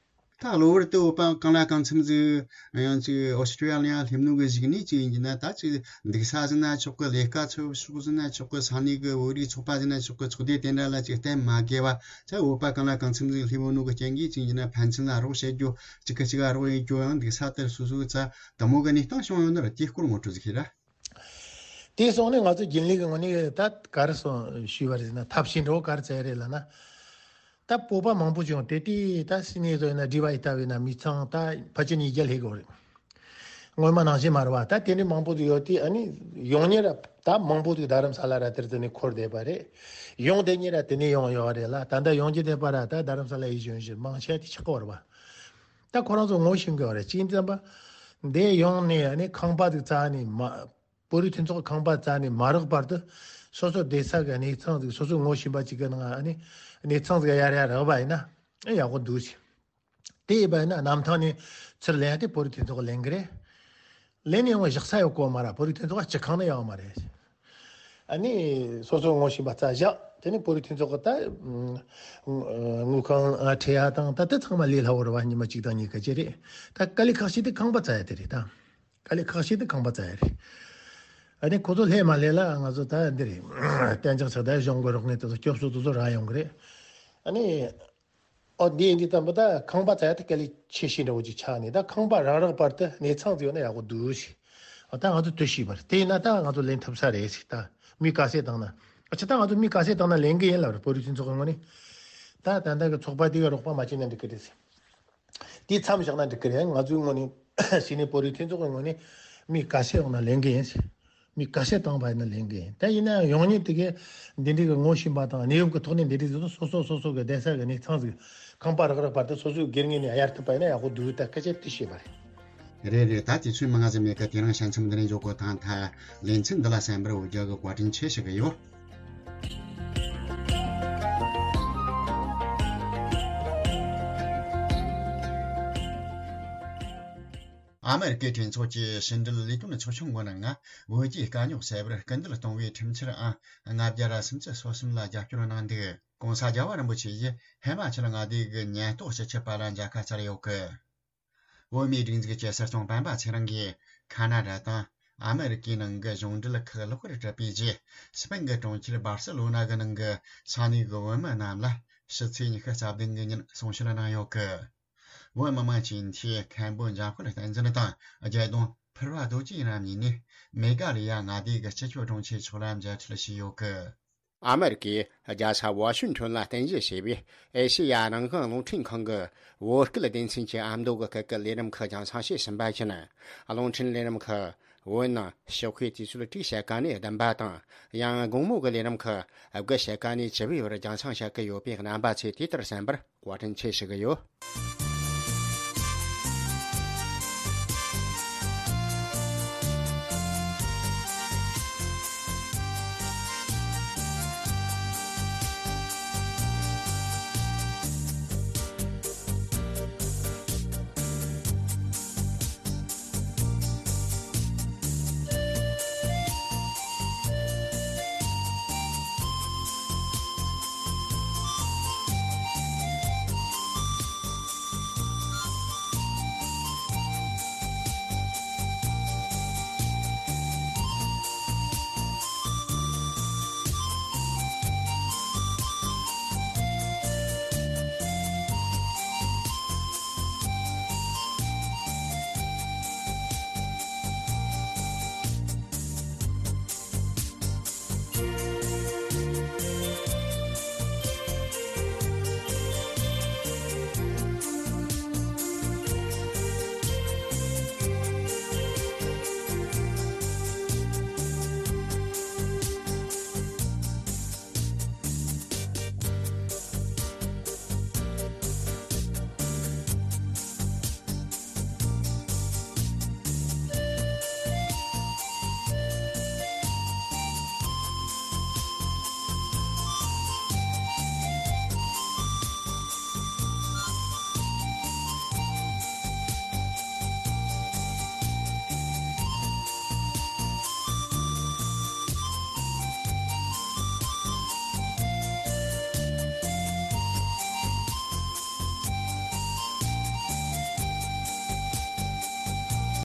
ད་གློ་བུར་དུ་བོད་པ་གང་ལ་གང་འཚམ་ཟིག་ཡང་ཅིག་ཨོ་སི་ཀྲི་ཡ་ལི་ཡ་སླེབས་ནོ་གི་གཞུག་ནས་ཅིག་ཡིན་གྱི་ན། ད་ཅིག་འདུག་ས་ཟིན་ན་ཆོག་གི། ལས་ཀ་འཚོལ་ཕྱོགས་ཟིན་ན་ཆོག་གི། ས་གནས་གི་བོད་རིགས་ཚོགས་པ་ཟིན་ན་ཆོག་གི། ཚོགས་སྡེ་དེ་འདྲ་ལ་ཅིག་གཏན་མ་དགོས་པ། ཅིག་བོད་པ་གང་ལ་གང་འཚམ་ཟིག་སླེབས་ཡོད་ནོ་གི་རྐྱེན་གྱིས་ཅིག་ཡིན་གྱི་ན་ཕན་ཚུན་ལ་རོགས་བྱེད་རྒྱུ། གཅིག་གིས་གཅིག་ག་རོགས་ཡེད་རྒྱུ། ཡང་འདུག་ས་དེར་སོ་སོའི་རྩ་དུ་མོ་གི་གནས་སྟངས་བྱུང་ཡོད་ན་ར། དེའི་སྐོར་ངོ་སྤྲོད་ཟིག་བྱེད་ར། དེ་སོང་ནས་ང་ཚོ་རྒྱུན་ལས་ཀྱི་ངོས་ནས་ད་ག་རེ་སོང་ཞུས་པ་རེད་ཟེར་ན། ཐབས་ཤེས་འདྲ་བོ་ག་རེ་བཙལ་རེད་ལབ་ན། ད་བོད་པ་མང་པོ་ཅིག་ཡོང་། དེ་དུས་ད་སི་ནི་ཚོ་ཡིན་ན་སྒྲིབ་པ་ཡི་ལྟ་བས་ན་མི་ཚང་ད་ཕལ་ཆེར་ཉིས་བརྒྱ་སླེབས་ཀྱི་ཡོད་རེད། སྔོན་མ་ནང་བཞིན་མ་རེད་བ། ད་དེ་འདྲའི་མང་པོ་ཅིག་ཡོད་དུས་ཨ་ནི་ཡོང་མཁན་ར་ད་མང་པོ་ཅིག་རྡ་རམ་ས་ལ་ར་དེར་དེ་ནས་འཁོར་བསྡད་པ་རེད། ཡོང་བསྡད་མཁན་ར་དེ་ནས་ཡོང་ཡོད་རེད་ལ། ད་ལྟ་ཡོང་རྒྱུ་བསྡད་པ་ར་ད་རྡ་རམ་ས་ལ་ཡི་གཞོན་གཞོན་མང་ཆེ་དེ་ཆགས་ཀྱི་ཡོད་རེད་བ། ད་ཁོ་རང་ཚོ་ངོ་ཤེས་ཀྱི་ཡོད་རེད། གཅིག་ཙམ་པ་འདི་ཡོང་ནས་ཨ་ནི་ཁང་པ་ཅིག་བཙལ་ནས་མ། བོད་རིགས་མཐུན་ཚོགས་ཁང་པ་བཙལ་ནས་མ་རག་བར་དུ་སོ་སོ་བསྡད་ས་གི་གནས་ཚང་ཟིག་སོ་སོའི་ངོ་ཤེས་པ་ཅིག་གི་ནང་ཨ་ནི་གནས་ཚང་ཟིག་གཡར་ཡ་རག་པ་ཡིན་ན་ཨེ་ཡག་པོ་འདུག་ཟེར། དེ་ཡིན་པ་ཡིན་ན་གནམ་ཐང་ནས་ཚུར་ལེན་ཡ་དེ་བོད་རིགས་མཐུན་ཚོགས་ལེན་གི་རེད། ལེན་ནས་ཡོང་བ་བཞག་ས་ཡོད་གོ་མ་ར། བོད་རིགས་མཐུན་ཚོགས་སྤྱི་ཁང་ནས་ཡོང་མ་རེད། ཨ་ནི་སོ་སོའི་ངོ་ཤེས་པ་བཙལ་བཞག་དེ་ནས་བོད་རིགས་མཐུན་ཚོགས་གི་ད་དངུལ་ཁང་ཁྲལ་ཡ་དང་ད་དེ་ཚང་མ་ལས་སླ་བོ་རེད་བ། ཉི་མ་གཅིག་དང་གཉིས་ཀ་ཅིག་རེད། ད་དཀའ་ལས་ཁག་ཤོས་དེ་ཁང་པ་བཙལ་ཡ་དེ་རེད་ད། དཀའ་ལས་ཁག་ཤོས་དེ་ཁང་པ་བཙལ་ཡ་རེད། ཨ་ནི་ཁོ་ཚོ་སླེབས་མ་སླེབས་ལ་ང་ཚོ་ད་འདི་རེད། གཏན་འཇགས་ཆགས་ད་གཞུང་གི་རོགས་དངུལ་དེ་ཚོ་སྐྱོབ་གསོ་དེ་ཚོ་རག་ཡོང་གི་རེད། ཨ་ནི་ཨོ་འདི་འདི་ཙམ་པ་ད་ཁང་པ་བཙལ་ཡ་དེ་དཀའ་ལས་ཆེ་ཤོས་འདྲ་བོ་ཅིག་ཆགས་ནས། ད་ཁང་པ་རག་རག་བར་དུ་གནས་ཚང་ཟིག་ཡོད་ན་ཡག་པོ་འདུག་ཟེར། ཨ་ད་ང་ཚོ་དུ་ཤེས་པར་དེ་ཡིན་ན་ད་ང་ཚོ་ལེན་ཐུབ་ས་རེད་ཟེར། ད་མི་ག་ཚད་བཏང་ན། ཨ་ཅི་ད་ང་ཚོ་མི་ག་ཚད་བཏང་ན་ལེན་གི་ཡིན་ལབ་རེད། བོད་རིགས་མཐུན་ཚོགས་ཀྱི་ངོས་ནས། ད་ད་ལྟ་གི་ཚོགས་པ་དེ་ག་རོགས་པ་མ་བྱས་ན་འགྲིག་གི་རེད་ཟེར། དེ་མཚམས་བཞག་ན་འགྲིག་གི་རེད། ང་ཚོའི་ངོས་ནས་སི་ནི་བོད་རིགས་མཐུན་ཚོགས་ཀྱི་ངོས་ནས་མི་ག་ཚད་ཡོང་ན་ལེན་གི་ཡིན། མི་ག་ཚད་བཏང་བ་ཡིན་ན་ལེན་གི་ཡིན། ད་ཡིན་ན་ཡང་ཡོང་མཁན་དེ་གས་འདི་འདྲའི་གི་ངོ་ཤེས་པ་དང་གནས་བབ་ཀྱི་ཐོག་ནས་འདི་འདྲའི་ཟེར་ན་སོ་སོ་སོ་སོ་གི་བསྡད་ས་གི་གནས་ཚང་ཟིག་ཁང་པ་རག་རག་བར་དུ་སོ་སོའི་སྒེར་ངོས་ནས་གཡར་ཐུབ་པ་ཡིན་ན་ཡག་པོ་འདུག་ད་སྐད་ཆ་དེ་བཤད་པ་རེད། རེད་རེད། ད་དུས་ཚོད་མང་ང་ཟིག་མེད་ཀི། དེ་རིང་ཞལ་འཚམས་འདི་ནས་འཇོག་གོ། ཐང་ཐ་ལེ་ཚན་འདི་ལ་གསན་པར་འོས་རྒྱ་གི་བཀའ་དྲིན་ཆེ་ཞུ་གི་ཡོད། ཨ་མེ་རི་ཀའི་གྲོས་ཚོགས་ཀྱི་ཕྱི་འབྲེལ་ལས་དོན་ཚོགས་ཆུང་གི་ནང་ང་བོད་ཀྱི་དཀའ་རྙོག་སེལ་བར་སྐུལ་འདེད་གཏོང་བའི་ཁྲིམས་འཆར་ཨང་ལྔ་བརྒྱ་ར་སུམ་ཅུ་སོ་གསུམ་ལ་རྒྱབ་སྐྱོར་གནང་འདུག་གོང་ས་རྒྱལ་བ་རིན་པོ་ཆེ་ཡིས་ཧི་མ་ཅལ་མངའ་སྡེ་གི་ཉེན་རྟོག་སྤྱི་ཁྱབ་པ་ལ་མཇལ་ཁ་བཅར་ཡོད་གི། བོད་མིའི་སྒྲིག་འཛུགས་ཀྱི་སྲིད་སྐྱོང་སྤེན་པ་ཚེ་རིང་གིས་ཁ་ན་ཌ་དང་ཨ་མེ་རི་ཀའི་ནང་གི་གཞུང་འབྲེལ་ཁག་ལེགས་པར་གྲུབ་པའི་རྗེས། སྤེན་གྱི་གྲོང་ཁྱེར་སྦར་སེ་ལོ་ན་གི་ནང་གི་ས་གནས་ཀྱི་བོད་མི་རྣམས་ལ་ཕྱི་ཚེས་ཉི་ཤུ་རྩ་བདུན་གྱི་ཉིན་གསུང་བཤད་གནང་ཡོད་གི། བོད་མི་མང་སྤྱི་འཐུས་མཁན་པོ་འཇམ་དཔལ་བསྟན་འཛིན་དང་རྒྱལ་གདོང་ཕུར་བ་རྡོ་རྗེ་རྣམ་གཉིས་ནས་མེ་ག་ལི་ཡ་མངའ་སྡེ་གི་སྤྱི་ཁྱབ་དྲུང་ཆེ་མཆོག་ལ་མཇལ་འཕྲད་བྱས་ཡོད་གི། ཨ་མེ་རི་ཀའི་རྒྱལ་ས་ཝ་ཤིང་ཊོན་ལ་རྟེན་གཞི་བྱས་པའི་ཨེ་ཤེ་ཡ་རང་དབང་རླུང་འཕྲིན་ཁང་གི་བོད་སྐད་སྡེ་ཚན་གྱི་ཨ་མདོ་གི་སྐད་ཀྱི་ལས་རིམ་ཁག་རྒྱང་སྲིང་བྱས་ཟིན་པ་བཞིན། རླུང་འཕྲིན་ལས་རིམ་ཁག་བོད་ནང་ཕྱི་དཔེ་དུས་ཚོད་དྲུག་ཕྱེད་ཀ་ནས་བདུན་པ་དང་། ཡང་དགོང་མོ་གི་ལས་རིམ་ཁག་དགུ་ཕྱེད་ཀ་ནས་བཅུ་པའི་བར་རྒྱང་སྲིང་བྱེད་ཀྱི་ཡོད་པས། རྣམ་པ་ཚོས་དེ་ལྟར་གསན་པར་བཀའ་དྲིན་ཆེ་ཞུ་གི་ཡོད།